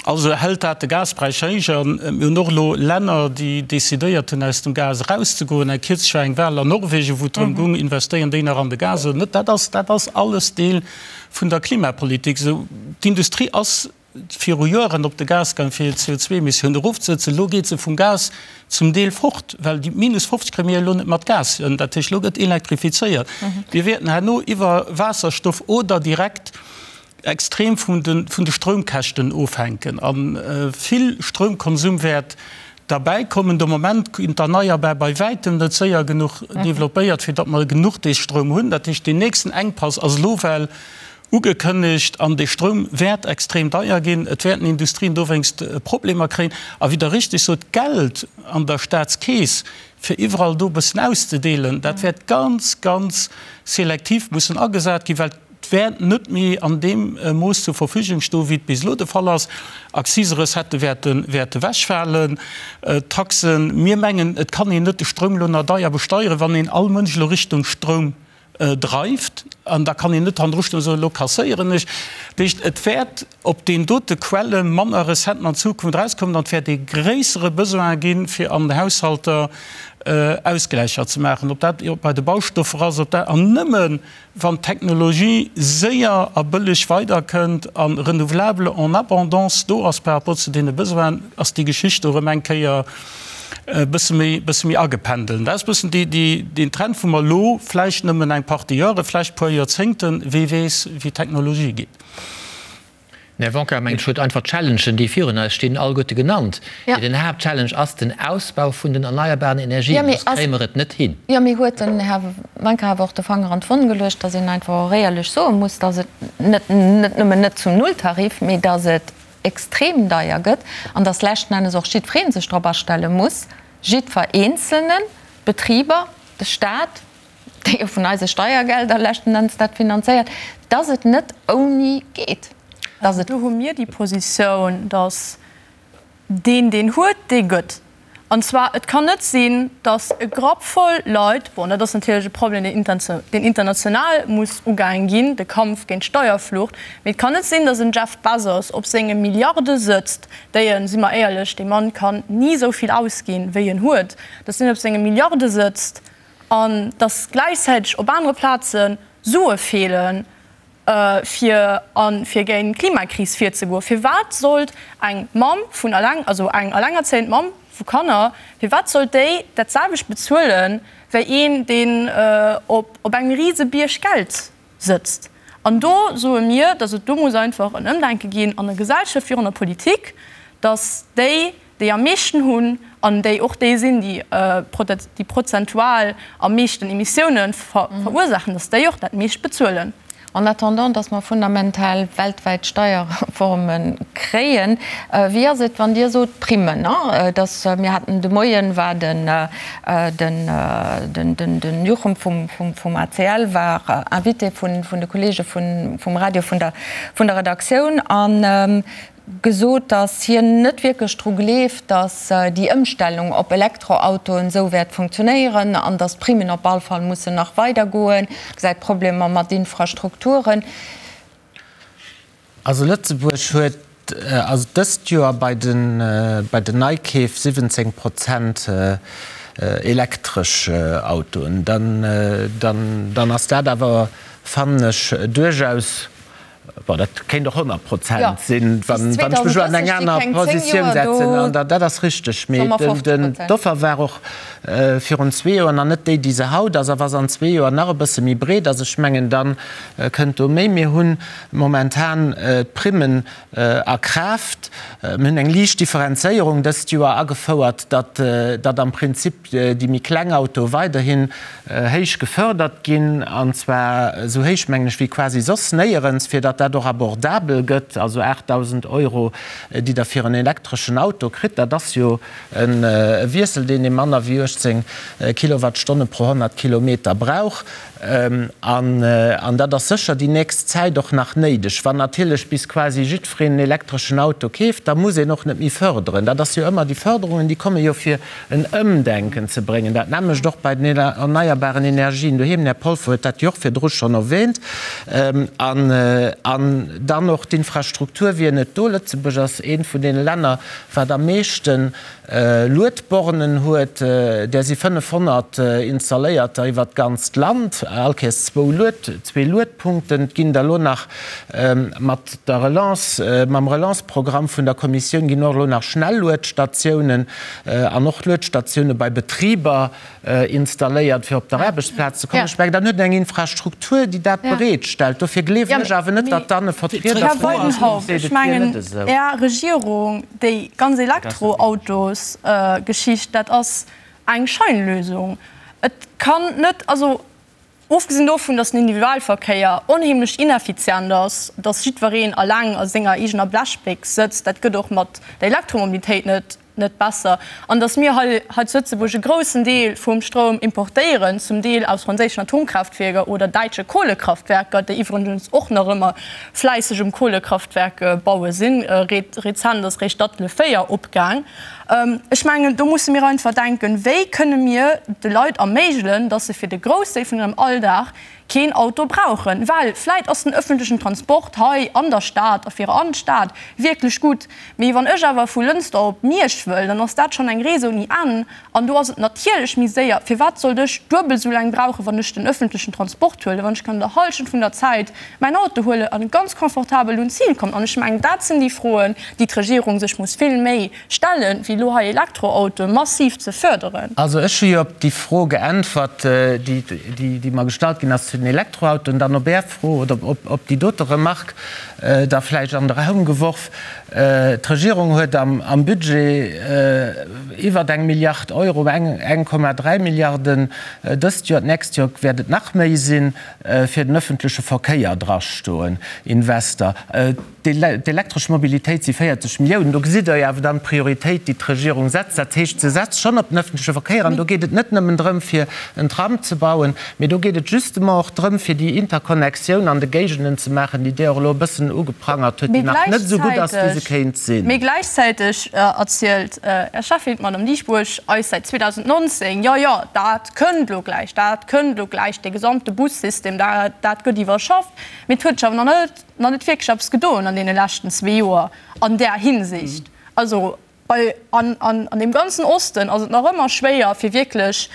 Also hält dat de Gaspräis héich. A mir hunn och elo Länner, déi decidéiert hunn, aus dem Gas erauszegoen. Eng kierzlech war eng Wal an Norwegen, wou et drëm goung, investéieren déi nach an de Gas oder net. Dat ass, dat ass alles Deel vun der Klimapolitik. Esou, d'Industrie ass viru Joeren op de Gas gaang, fir hir CO2-Emissiounen erofzesetzen. Elo geet se vum Gas zum Deel fort, well déi minus 50 kréie mir elo net mat Gas hin. Dat heescht, elo gëtt elektrifizéiert. Mir wäerten herno iwwer Waasserstoff oder direkt extrem vun de vun de Stroumkäschten ofhänken a vill Stroumkonsum wäert derbäi kommen. De Moment ginn d'Erneierbar bei wäitem net séier genuch developpéiert, fir datt mer genuch dee Stroum hunn. Dat heescht, deen nächsten Enkpass ass elo well ugekënnegt an dee Stroum wäert extrem deier ginn. Et wäerten Industrien dowéinst Problemer kréien. A wéi Der richteg sot, d'Geld an der Staatskeess, fir iwwerall do e bëssen auszedeelen, dat wäert ganz, ganz selektiv mussen agesat ginn, well Et wäert net méi an deem Mooss zur Verfügung stoen, wéi et bis elo de Fall ass. Akziserecettë wäerte wäerte wechfalen, Taxen. Mir mengen, et kann een net de Stroum elo nach deier besteieren, wann een all Mënsch elo Richtung Stroum dreift. An da kann een net hannendru stoen a soen, elo kasséieren ech. Dat heescht, et wäert op deenen dote Quelle manner Recetten an Zukunft erauskommen an et wäert ee gréissere Besoin ginn, fir an den Haushalter Ausgläicher ze maachen, ob dat bei de Baustoffer ass, ob dat, an nëmme Wann d'Technologie séier a bëlleg weiderkënnt a Renouvelable en abondance do ass par rapport zu deene Besoinen, ass déi Geschicht do erëm eng Kéier e bësse méi, bësse méi agependelt. Dat ass e bëssen déi, déi, deen Trend, wou mer elo vläicht nëmmen eng Partie Jahre, vläicht e puer Joerzéngten, wee weess, wéi d'Technologie geet. Den Här Wonka mengt, ech huet einfach d'Challengen, déi virun eis stinn, alleguerte genannt. Mee den Haaptchallenge ass den Ausbau vun den erneierbaren Energien, soss kréie mer et net hin. Jo, mee huet den Här Wanka awer och de Fanger an d'Wonn geluecht, dass een einfach och éierlech soe muss, dass et net net nëmmen net zum Nulltarif, mee dass et extrem deier gëtt an dass leschten Ennes och jiddweree sech drop astelle muss, jiddwer Eenzelnen, d'Betriber, de Stat, déi jo vun eise Steiergelder leschten Enns dat finanzéiert, dass et net ouni geet, dass et. Do hu mir déi Positioun, dass deen, deen huet, dee gëtt. An zwar, et kann net sinn, dass e Grapp voll Leit, bon, dat ass natierlech e Problem, deen international muss ugaange ginn, de Kampf géint d'Steierflucht, mee et kann net sinn, dass en Jeff Bezos op senge Milliarde sëtzt, déi en, si mer éierlech, dee Mann kann ni esou vill ausginn, wéi en huet, dass deen op senge Milliarde sëtzt an dass gläichzäiteg op anere Plaze Sue feelen, fir a fir géint d'Klimakris virzegoen. Firwat sollt eng Mamm vun eleng, also eng elengerzéiend Mamm vu Kanner, firwat sollt déi dat selwecht bezuelen, wéi een, deen op engem Risebierg Geld sëtzt? An do soe mir, dass et do muss einfach en Ëmdenke ginn an der Gesellschaft wéi och an der Politik, dass déi, déi am meeschten hunn an déi och déi sinn, déi déi prozentual am meeschten Emissiounen verursaachen, dass déi och dat meescht bezuelen. En attendant, dass mer fundamental weltwäit Steierreforme kréien, wéi ass et, wann Dir sot, Primmen, dass, mir haten de Moien, war den den Juchem vum ACL war Invité vun de Kollege vum Radio, vun der Redaktioun an gesot, datt hien net wierklech dru gleeft, datt déi Ëmstellung op Elektroautoen esou wäert funktionéieren an datt d'Primmen op all Fall mussen nach weidergoen, gesäit Problemer mat Infrastrukturen. Also Lëtzebuerg huet also dëst Joer bei den bei den Neikeef 17 Prozent. elektresch Autoen, dann, dann ass dat awer, fannen ech, duerchaus, bon, dat kéint och 100 Prozent sinn, wann ech mech elo an eng aner Positioun setzen, an dat ass richteg. Mee d'Offer war och virun zwee Joer nach net déi, déi se haut ass. A wa se an zwee Joer nach e bësse méi breet ass, ech mengen, da kënnt do méi. Mir hu momentan d'Primmen a Kraaft. Mir hunn eng liicht Differenzéierung dëst Joer agefouert, datt datt am Prinzip déi méi kleng Autoe weiderhin héich gefördert ginn, an zwar esou héich, mengen ech, wéi quasi soss néierens, fir datt dat och abordabel gëtt. Also 8.000 Euro, déi Der fir en elektreschen Auto kritt, dat ass jo e Wiessel, deen ee manner wéi 18 Kilowattstonne pro 100 Kilometer brauch. An dat ass sécher déi nächst Zäit och nach néideg. Wann natierlech bis quasi jiddwereen en elektreschen Auto keeft, da muss een och net méi förderen. Dat ass jo ëmmer, déi Förderungen, déi komme jo fir en Ëmdenken ze bréngen. Dat nämmlecht och bei den erneierbaren Energien doheem. Den Här Polfer huet dat jo och virdru schonn erwähnt. An dann och d'Infrastruktur wier net do. Lëtzebuerg ass eent vun deene Länner, wat am meeschten Luedbornen huet, där si 500 installéierter iwwert d'ganzt Land, all Kéiers zwou Lued, zwee Luedpunkten. Et ginn der elo nach mat der Relance, mam Relance-Programm vun der Kommissioun ginn och elo nach Schnelluedstatiounen an och Luedstatioune bei Betriber installéiert, fir op der Aarbechtsplaz ze kommen. Ech mengen, dann huet een eng Infrastruktur, déi dat bereetstellt. Dofir gleewen ech awer net, datt dann e Vertrieder Här Weidenhauf, ech mengen, Är Regierung, déi ganz Elektroautosgeschicht, dat ass eng Scheinlösung. Et kann net, also ofgesinn dovun, datt den Individualverkéier onheemlech ineffizient ass, datt jiddwereen eleng a senger eegener Blechbéchs sëtzt, dat gëtt och mat der Elektromobilitéit net net besser, an datt mir hei hei zu Lëtzebuerg e groussen Deel vum Stroum importéieren, zum Deel aus franséischen Atomkraaftwierker oder däitsche Kohlekraftwerker, déi iwwregens och nach ëmmer fläisseg um Kohlekraftwerke baue sinn. Rezent ass réischt Datteln 4 opgaang. Ech mengen, do musse mir einfach denken, Wéi kënne mir de Leit erméigelen, datt se fir de Groussdeel vun hirem Alldag keen Auto brauchen, well vläit ass den öffentlechen Transport hei an der Stad a fir an d'Stad wierklech gutt, mee wann ech awer vu Lënster op Miersch wëll, dann ass dat schonn eng Rees ouni Enn an do ass et natierlech méi séier. Firwat sollt ech duebel esou laang brauchen, wann ech den öffentlechen Transport huelen, wann ech kann an der Hallschent vun der Zäit mäin Auto huelen an ganz confortabel un d'Zil kommen? An ech mengen, dat sinn déi Froen, déi d'Regierung sech muss vill méi stellen, wéi elo hei Elektroautoe massiv ze förderen. Also ech hu jo op déi Fro geäntwert, déi mer gestallt ginn ass zu den Elektroautoen. Dann op Är Fro oder op déi dote Remark da vläicht an de Raum geworf. D'Regierung huet am Budget iwwer eng Milliard Euro, 1,3 Milliarden dëst Joer, d'nächst Joer wäert et nach méi sinn, fir den öffentleche Verkéier drastoen, Invester. D'elektresch Mobilitéit si 40 Milliounen. Do gesitt Der jo awer dann d'Prioritéit, déi d'Regierung setzt. Dat heescht, se setzt schonn op den öffentleche Verkéier. An do geet et net nëmmen drëm, fir en Tram ze bauen, mee do geet et justement och drëm, fir déi Interconnectioun an de Géigenden ze maachen, déi Dir och elo e bëssen ugeprangert hutt, déi nach net esou gutt ass, wéi se kéint sinn. Mee gläichzäiteg erzielt Är Cheffin, d'Madame Dieschbourg, eis säit 2019, Jo, jo, dat kënnt elo gläich, dat kënnt elo gläich, dee gesamte Bussystem, dat gëtt iwwerschafft. Mee et huet sech awer nach net nach net wierklech eppes gedoen an deene leschten zwee Joer an där Hinsicht. Also bei, an, an, an deem ganzen Osten ass et nach ëmmer schwéier, fir wierklech,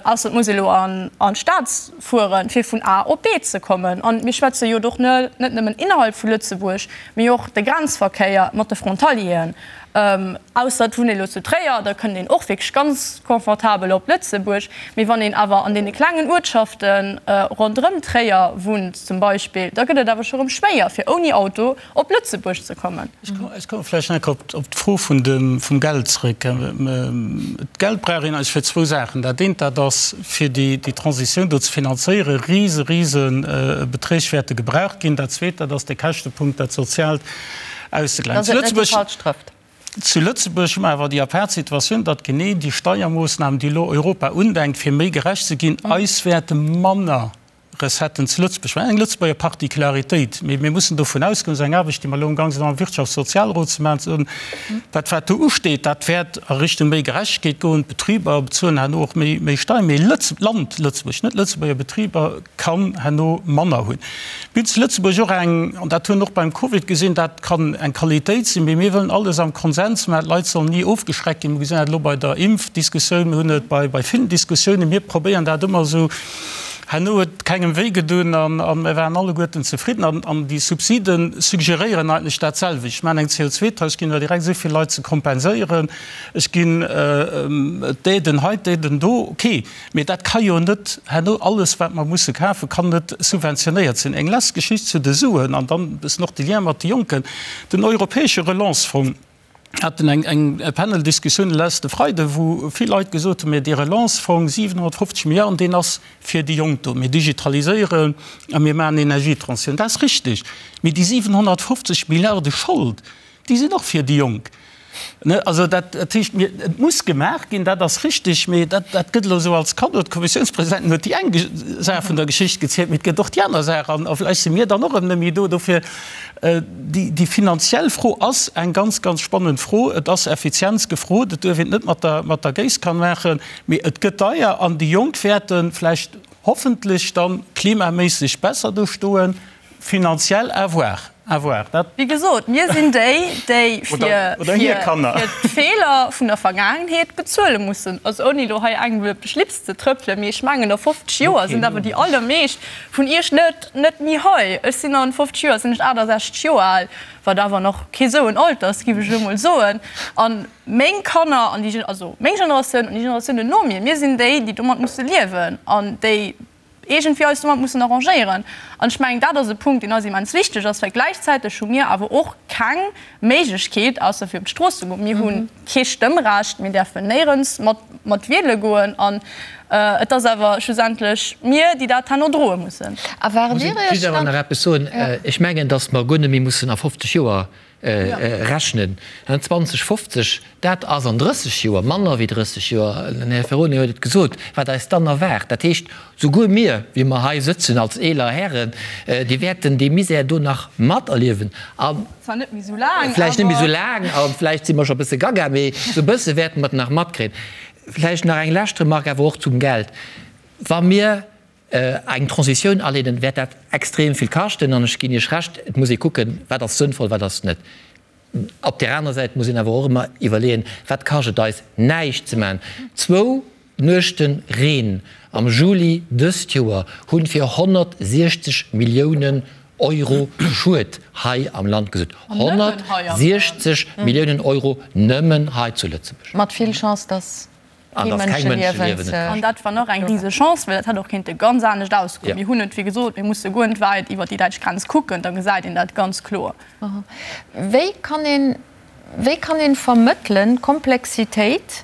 ausser et muss ee lo an, an d'Stad fueren, fir vun A op B ze kommen. An mir schwätze jo och net nëmmen innerhalb vu Lëtzebuerg, mee och de Grenzverkéier mat de Frontalieren. Ausser et wunnt ee lo zu Tréier, da kënnt een och wierklech ganz confortabel op Lëtzebuerg. Mee wann een awer an deene klengen Uertschafte ronderëm Tréier wunnt zum Beispill, da gëtt et awer scho rëm schwéier, fir ouni Auto op Lëtzebuerg ze kommen. Ech komme vläicht nach eng Kéier op d'Fro vum Geld zrëck. D'Geld brauch een eigentlech fir zwou Saachen. Dat eent, dat ass fir déi Transitioun do ze finanzéieren. Rise, rise Beträg wäerte gebraucht ginn. Dat Zweet, dat ass de Käschtepunkt, dat Soziaalt. auszegläichen. Zu Lëtzebuerg, zu Lëtzebuerg hu mer awer déi apaart Situatioun, datt genee déi Steiermoossnamen, déi elo Europa undenkt, fir méi gerecht ze ginn, eis wäerte manner. Recetten zu Lëtzebuerg. Mä eng Lëtzebuerger Particularitéit. Mee mir mussen dovun ausgoen, dat ass eng Aarbecht, déi mer elo amgang sinn am Wirtschaftssozialrot ze maachen, ze soen, dat wat do usteet, dat wäert a Richtung méi Gerechtegkeet goen. D'Betriber bezuelen herno och méi, méi Steieren. Mee Lëtz-, d'Land Lëtzebuerg, net Lëtzebuerger Betriber, kann herno manner hunn. Mir hunn zu Lëtzebuerg och eng, an dat hunn och beim Covid gesinn, dat kann eng Qualitéit sinn, mee mir wëllen alles am Konsens maachen. D'Leit sollen ni ofgeschreckt ginn. Mir gesinn dat elo bei der Impfdiskussioun, mir hunn et bei, bei villen Diskussiounen. Mir probéieren dat ëmmer esou. Herno huet et kengem wéi gedun an mir waren alleguerten zefridden. An déi Subside suggeréieren eigentlech dat selwecht. Ech maachen eng CO2-Tax, ech ginn der direkt esou vill Leit ze kompenséieren, ech ginn d'Aiden hei, d'Aiden do. Okay, mee dat ka jo net herno alles, wat mer musse kafen, kann net subventionéiert sinn. Eng lescht Geschicht zu de Suen an dann e bëssen och de Lien mat de Jonken, Den europäesche Relancefonds, haten eng eng Paneldiskussioun de leschte Freide wou vill Leit gesot hunn, mä dee Relancefonds, 750 Milliarden, deen ass fir déi Jonk do. Mir digitaliséieren a mir maachen Energietransitioun. Dat ass richtig. Mee déi 750 Milliarde Schold, déi sinn och fir déi Jonk. Ne, also dat dat heescht, mir, et muss gemaach ginn, dat ass richtig, mee dat dat gëtt elo esou als Kaddo. D'Kommissiounspresidentin huet déi eng Saach vun der Geschicht gezielt, mee et gëtt och déi aner Saach an a vläicht si mir dann och erëm net méi do. Dofir, Déi finanziell Fro ass eng ganz, ganz spannend Fro. Et ass Effizienz gefrot. Et duerf een et net mat der Géisskan maachen, mee et gëtt deier an déi Jonk wäerte vläicht hoffentlech da klimaméisseg besser do stoen. Finanziell, à voir, à voir. Dat. Wéi gesot, mir sinn déi, déi fir d'Feeler vun der Vergaangenheet bezuele mussen. Also ouni elo hei engem op de Schlips ze trëppelen, mee ech mengen, a 50 Joer sinn awer déi allermeescht vun Iech net Net méi hei. Ech sinn an 50 Joer sinn ech 68 Joer al, wat awer nach kee sou en Alter ass, giff ech elo mol soen. An meng Kanner an déi, also meng Generatioun an déi Generatiounen no mir, mir sinn déi, déi domat musse liewen an déi iergendwéi eis domat mussen arrangéieren. An ech mengen, dat ass e Punkt, deen eis immens wichteg ass, well gläichzäiteg hu mir awer och keng Méiglechkeet, ausser fir op d'Strooss ze goen. Mir hu kee Stëmmrecht, mir däerfen néierens mat mat wiele goen an et ass awer schlussendlech mir, déi dat herno droe mussen. A waart Dir Iech dann. Muss ech just awer nach eppes soen. Ech mengen, datt mer guer net méi mussen a 50 Joer rechnen. 2050, dat ass an 30 Joer, manner wéi 30 Joer, den Här Ferrone huet et gesot, wat eis dann erwaart. Dat heescht, souguer mir, wéi mer hei sëtzen als eeler Hären, déi wäerten dee Misär do nach materliewen. A Zwar net méi esou laang, vläicht net méi esou laang a vläicht si mer scho e bësse gaga, mee esou e bësse wäerte mer et nach matkréien. Vläicht nach eng lescht Remark awer och zum Geld. Wa mir eng Transitioun aleeden, wäert dat extrem vill kaschten. An ech ginn Iech Recht, et muss ee kucken, wat ass sënnvoll, wat ass net. Op där anerer Säit muss een awer och ëmmer iwwerleeën, wat kascht et eis, näischt ze maachen. Zwou Nuechte Reen am Juli dëst Joer hunn fir 160 Milliounen Euro Schued hei am Land gesuergt. 160 Milliounen Euro nëmmen hei zu Lëtzebuerg. Mat vill Chance, dass kee Mënscheliewen ze. An dat war nach eng rise Chance, well dat hätt och kéinte ganz anescht ausgoen. Mir hunn et, wéi gesot, mir musse guer net wäit iwwert déi däitsch Grenz kucken, da gesäit een dat ganz kloer. Wéi kann een, wéi kann een vermëttelen d'Komplexitéit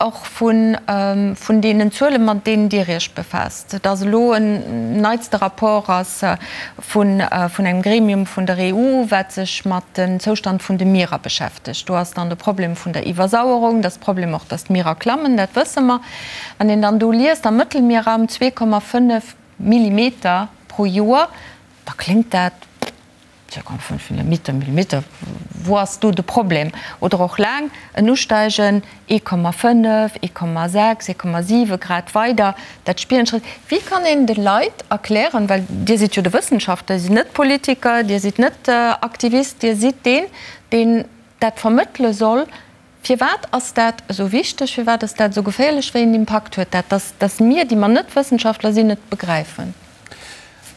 och vun, vun deenen Zuelen, mat deenen Dir Iech befaasst, dass elo en neitste Rapport ass vun, vun engem Gremium vun der EU, wat sech mat dem Zoustand vun de Mierer beschäftegt. Do ass dann de Problem vun der Iwwersauerung, dass Problem och, dass d'Mierer klammen, dat wësse mer. Wann een dann do liest, am Mëttelmierraum 2,5 Millimeter pro Joer, da kléngt dat, 2,5 Millimeter, Millimeter, wou ass do de Problem? Oder och laang en Usteigen, 1,5, 1,6, 1,7 Grad weider, dat spieren d'Schrëtt. Wéi kann een de Leit erklären, well Dir sidd jo de Wëssenschaftler, Dir sidd net Politiker, Dir sidd net Aktivist, Dir sidd deen, deen dat vermëttele soll, firwat ass dat esou wichteg, firwat ass dat esou geféierlech, wéi een Impakt huet dat, dass, dass mir, déi mer net Wëssenschaftler sinn, et begräifen?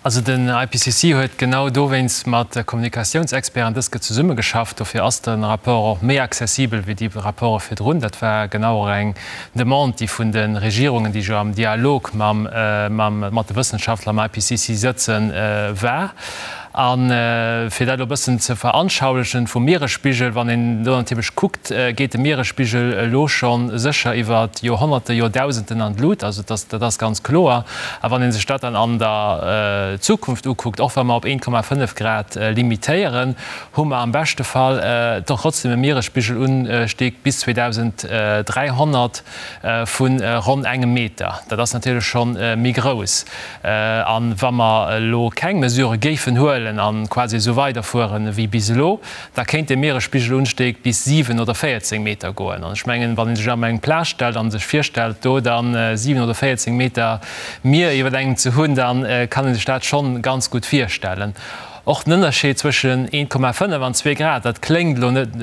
Also den IPCC huet genau dowéinst mat Kommunikatiounsexperten dës Ke zesummegeschafft. Dofir ass de Rapport och méi accessibel wéi déi Rapporte virdrun. Dat war genau och eng Demande, déi vun de Regierungen, déi jo am Dialog mam, mam, mat de Wëssenschaftler am IPCC sëtzen, war. A fir dat elo e bëssen ze veranschaulichen, vum Mieresspigel, wann een do natierlech kuckt, geet de Mieresspigel elo scho sécher iwwer Joerhonnerte, Joerdausenden an d'Lut. Also dat ass ganz kloer. A wann ee sech dat dann an der Zukunft ukuckt, och wa mer op 1,5 Grad limitéieren, hu mer am beschte Fall trotzdem e Mieresspigelunstieg bis 2300 vu ronn engem Meter. Dat ass natierlech scho méi grouss. A wa mer elo keng Mesurë géifen huelen a quasi esou weiderfueren ewéi bis elo, da kéint de Mieresspigelunstieg bis 7 oder 14 Meter goen. An ech mengen, wann ee sech op eng Plage stellt a sech virstellt, do da 7 oder 14 Meter Mier iwwer engem ze hunn, da kann ee sech dat schonn ganz gutt virstellen. Och den Ënnerscheed zwëschen 1,5 an 2 Grad, dat kléngt elo net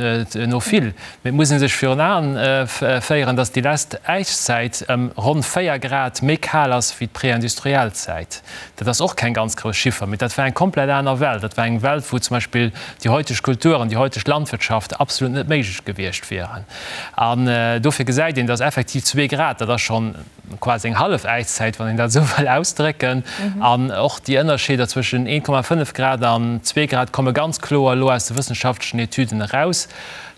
no vill, mee et muss ee sech virun Aen féieren, datt déi lescht Äiszäit ëm ronn 4 Grad méi kal ass wéi d'préindustriell Zäit. Dat ass och keng ganz grouss Chiffer, mee dat war eng komplett aner Welt. Dat war eng Welt, wou zum Beispill déi heuteg Kultur an déi heuteg Landwirtschaft absolut net méiglech gewiescht wieren. An dofir gesäit een, datt effektiv zwee Grad, dat ass schonn quasi eng hallef Äiszäit, wann een dat esou wëll ausdrécken. An och déi Ënnerscheeder zwëschen 1,5 Grad an zwee Grad komme ganz kloer elo aus de wëssenschaftlechen Etüden eraus.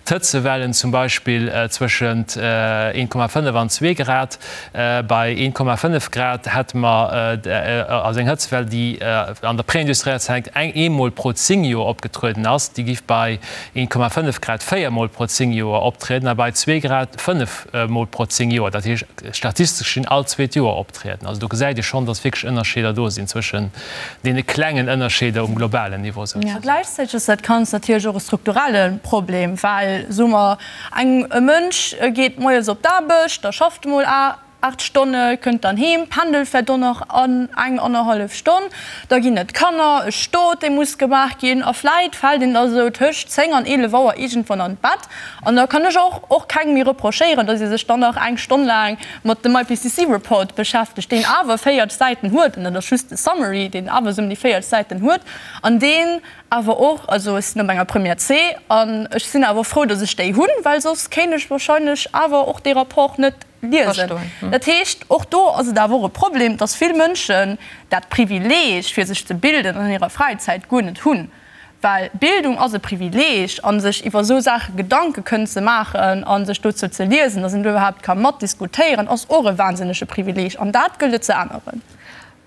D'Hëtzewellen zum Beispill zwëschent 1,5 an zwee Grad. Bei 1,5 Grad hätte mer also eng Hëtzewell, déi an der préindustrieller Zäit eng eemol pro 10 Joer opgetrueden ass, déi giff bei 1,5 Grad véiermol pro 10 Joer optrieden a bei zwee Grad fënnefmol pro 10 Joer. Dat heescht, statistesch gesinn all zweet Joer optrieden. Also do gesäit ee schonn, dass wierklech Ënnerscheeder do sinn zwëschen deene klengen Ënnerscheeder um globalen Niveau souzesoen. A gläichzäiteg ass dat Ganzt natierlech och e strukturelle Problem, well, soe mer, eng, e Mënsch geet moies op d'Aarbecht, da schafft e mol 8 Stonne, kënnt dann heem, pendelt vläicht och nach an eng, annerhallef Stonn, da ginn et Kanner, e Stot, dee muss gemaach ginn a vläicht fält een da sou tëscht 10 an 11 Auer iergendwann an d'Bett. An da kann ech och och kengem méi reprochéieren, datt ee sech dann nach eng Stonn laang mat dem IPCC Report beschäftegt, deen awer 40 Säiten huet, an dat ass just de Summary, deen awer esou ëm déi 40 Säiten huet an deen awer och, also ech sinn op enger Première C an ech sinn awer frou, datt ech déi hunn, well soss kéint ech wahrscheinlech awer och dee Rapport net liesen. Dat heescht, och do ass et awer och e Problem, datt vill Mënschen dat Privileeg, fir sech ze bilden an hirer Fräizäit, guer net hunn. Well Bildung ass e Privileeg, a sech iwwer esou Saache Gedanke kënnen ze maachen a sech dozou ze liesen, datt een do iwwerhaapt ka matdiskutéieren, ass och e wahnsinnege Privileeg. An dat gëllt et ze änneren.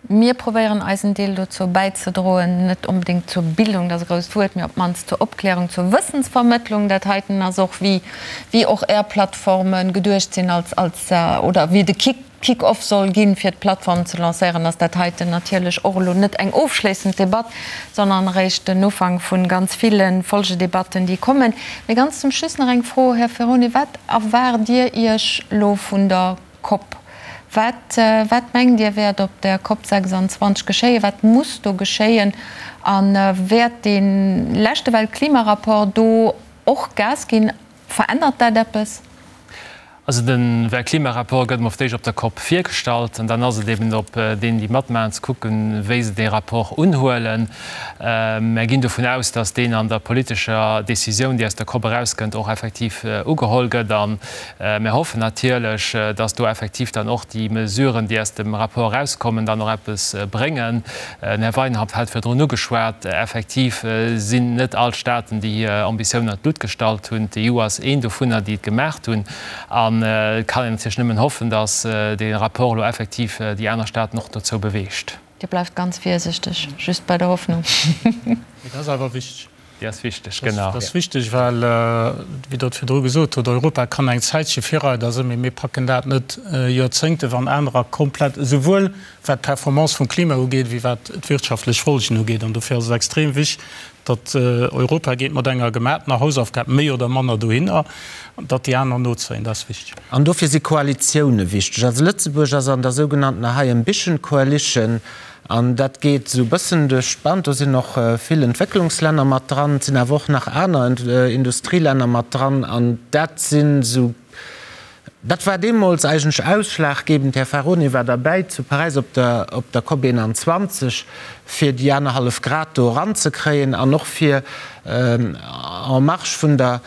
Mir probéieren eisen Deel dozou bäizedroen, net onbedéngt zur Bildung, dat ass e grousst Wuert, mee op d'mannst zur Opklärung, zur Wëssensvermëttlung. Dat heiten ass och, wéi, wéi och Är Plattforme geduecht sinn als, als, oder wéi de Kick, Kick-off soll ginn, fir d'Plattform ze lancéieren, ass dat heiten natierlech och elo net eng ofschléissend Debatt, sondern eréischt den Ufank vu ganz ville Folgedebatten, déi kommen. Mee ganz zum Schluss nach eng Fro, Här Ferone, Wat erwaart Dir Iech elo vun der Cop? Wat, wat mengt Dir, wäert op der Cop 26 geschéien? Wat muss do geschéien? A wäert dee leschte Weltklimarapport do och Gas ginn? Verännert dat eppes? Also de Weltklimarapport gëtt emol fir d'éischt op der Cop virgestallt an dann ass et eben op deenen, déi matmaachen, ze kucken, wéi se dee Rapport unhuelen. Mär ginn dovun aus, datt deen an der politescher Décisioun, déi aus der Cop erauskënnt, och effektiv ugeholl gëtt. A mär hoffen natierlech, datt do effektiv dann och déi Mesuren, déi aus dem Rapport erauskommen, dann och eppes bréngen. Den Här Weinhaupt hat virdrun ugeschwat, effektiv sinn net all d'Staaten, déi hir Ambitiounen an d'Lutt gestallt hunn. D'EU ass een dovunner, déi et gemaacht hunn. An et kann een natierlech nëmmen hoffen, datt dee Rapport elo effektiv déi aner Staaten och dozou beweegt. Dir bleift ganz virsichteg, just bei der Hoffnung. Mee dat ass awer wichteg. Déi ass wichteg, genau. Dat ass wichteg, well, wéi Der et virdru gesot hutt, Europa kann eng Zäitche Virreider sinn, mee mir packen dat net Joerzéngte, wann anerer komplett, esouwuel wat d'Performance vum Klima ugeet, wéi wat d'wirtschaftlech Folgen ugeet. An dofir ass et extrem wichtig, datt Europa geet mat enger gemaatener Hausaufgab méi oder manner dohinner, datt déi aner nozéien. Dat ass wichteg. An dofir si Koalitioune wichteg. Also Lëtzebuerg ass an der sougenanntener High Ambition Coalition. An dat geet esou e bëssen duerch d'Band. Do sinn och vill Entwécklungslänner mat dran, et sinn awer och nach aner Industrielänner mat dran. An dat sinn esou, dat war deemools eigentlech ausschlaggebend, Här Faroni war derbäi zu Paräis op der, op der COP 21, fir déi anerhallef Grad do eranzekréien an och fir en marge vun der,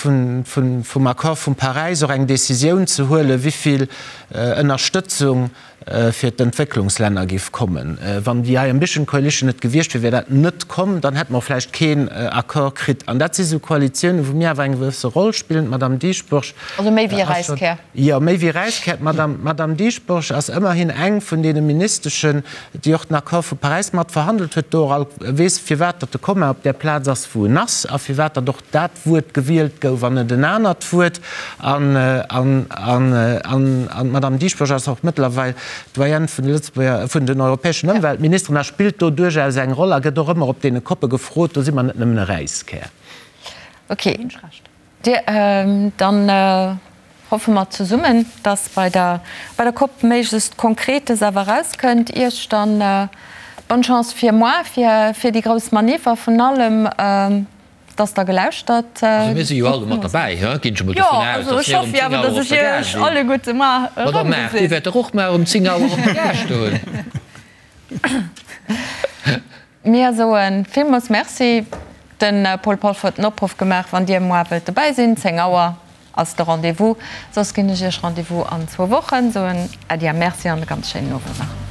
vun, vun, vum Accord vu Paräis och eng Décisioun ze huelen, wéi vill Ënnerstëtzung. fir d'Entwécklungslänner géif kommen. Wann déi High Ambition Coalition net gewiescht wier, wier dat net komm, dann hätte mer och vläicht keen Accord kritt. An dat si sou Koalitiounen, wou mir awer eng gewësse Roll spillen. D'Madame Dieschbourg Also méi wéi e Räiskär. Jo, méi wéi Räiskär. D'Madame Dieschbourg ass ëmmerhin eng vun deene Ministeschen, déi och den Accord vu Paräis mat verhandelt huet, do och all weess, firwat datt de Komma op där Plaz ass, wou en ass, a firwat datt och dat Wuert gewielt gouf an net en anert Wuert. An d'Madame Dieschbourg ass och mëttlerweil d'Doyenne vun de Lëtzebuerger, vun den europäeschen Ëmweltministeren a spillt do duerchaus eng Roll a gëtt och ëmmer op deene Koppe gefrot. Do si mer net nëmmen e Räiskär. Okay. Dir, dann hoffe mer zesummen, dass bei der bei der Cop méiglechst Konkretes awer erauskënnt. Iech dann bonne Chance fir moar, fir fir déi grouss Manif a vun allem, dass Der gelauschtert Also mir si jo alle mat derbäi, he, ginn ech emol Jo, dovun aus, also dass ech mir um hoffe jo 10 awer, Auer dass op ech der Gare Iech sinn. alleguerte mar Madame Maart, Dir erëmgesinn. wäert dach och mar um 10 Auer op der Gare stoen. Mir soe villmools Merci. De Paul Polfer huet den Opruff gemaach, wann Dir moar wëllt dobäi sinn, 10 Auer ass de Rendez-vous. Soss ginn ech Iech Rendez-vous an zwou Wochen. Soen Äddi a Merci an e ganz schéinen Owend nach.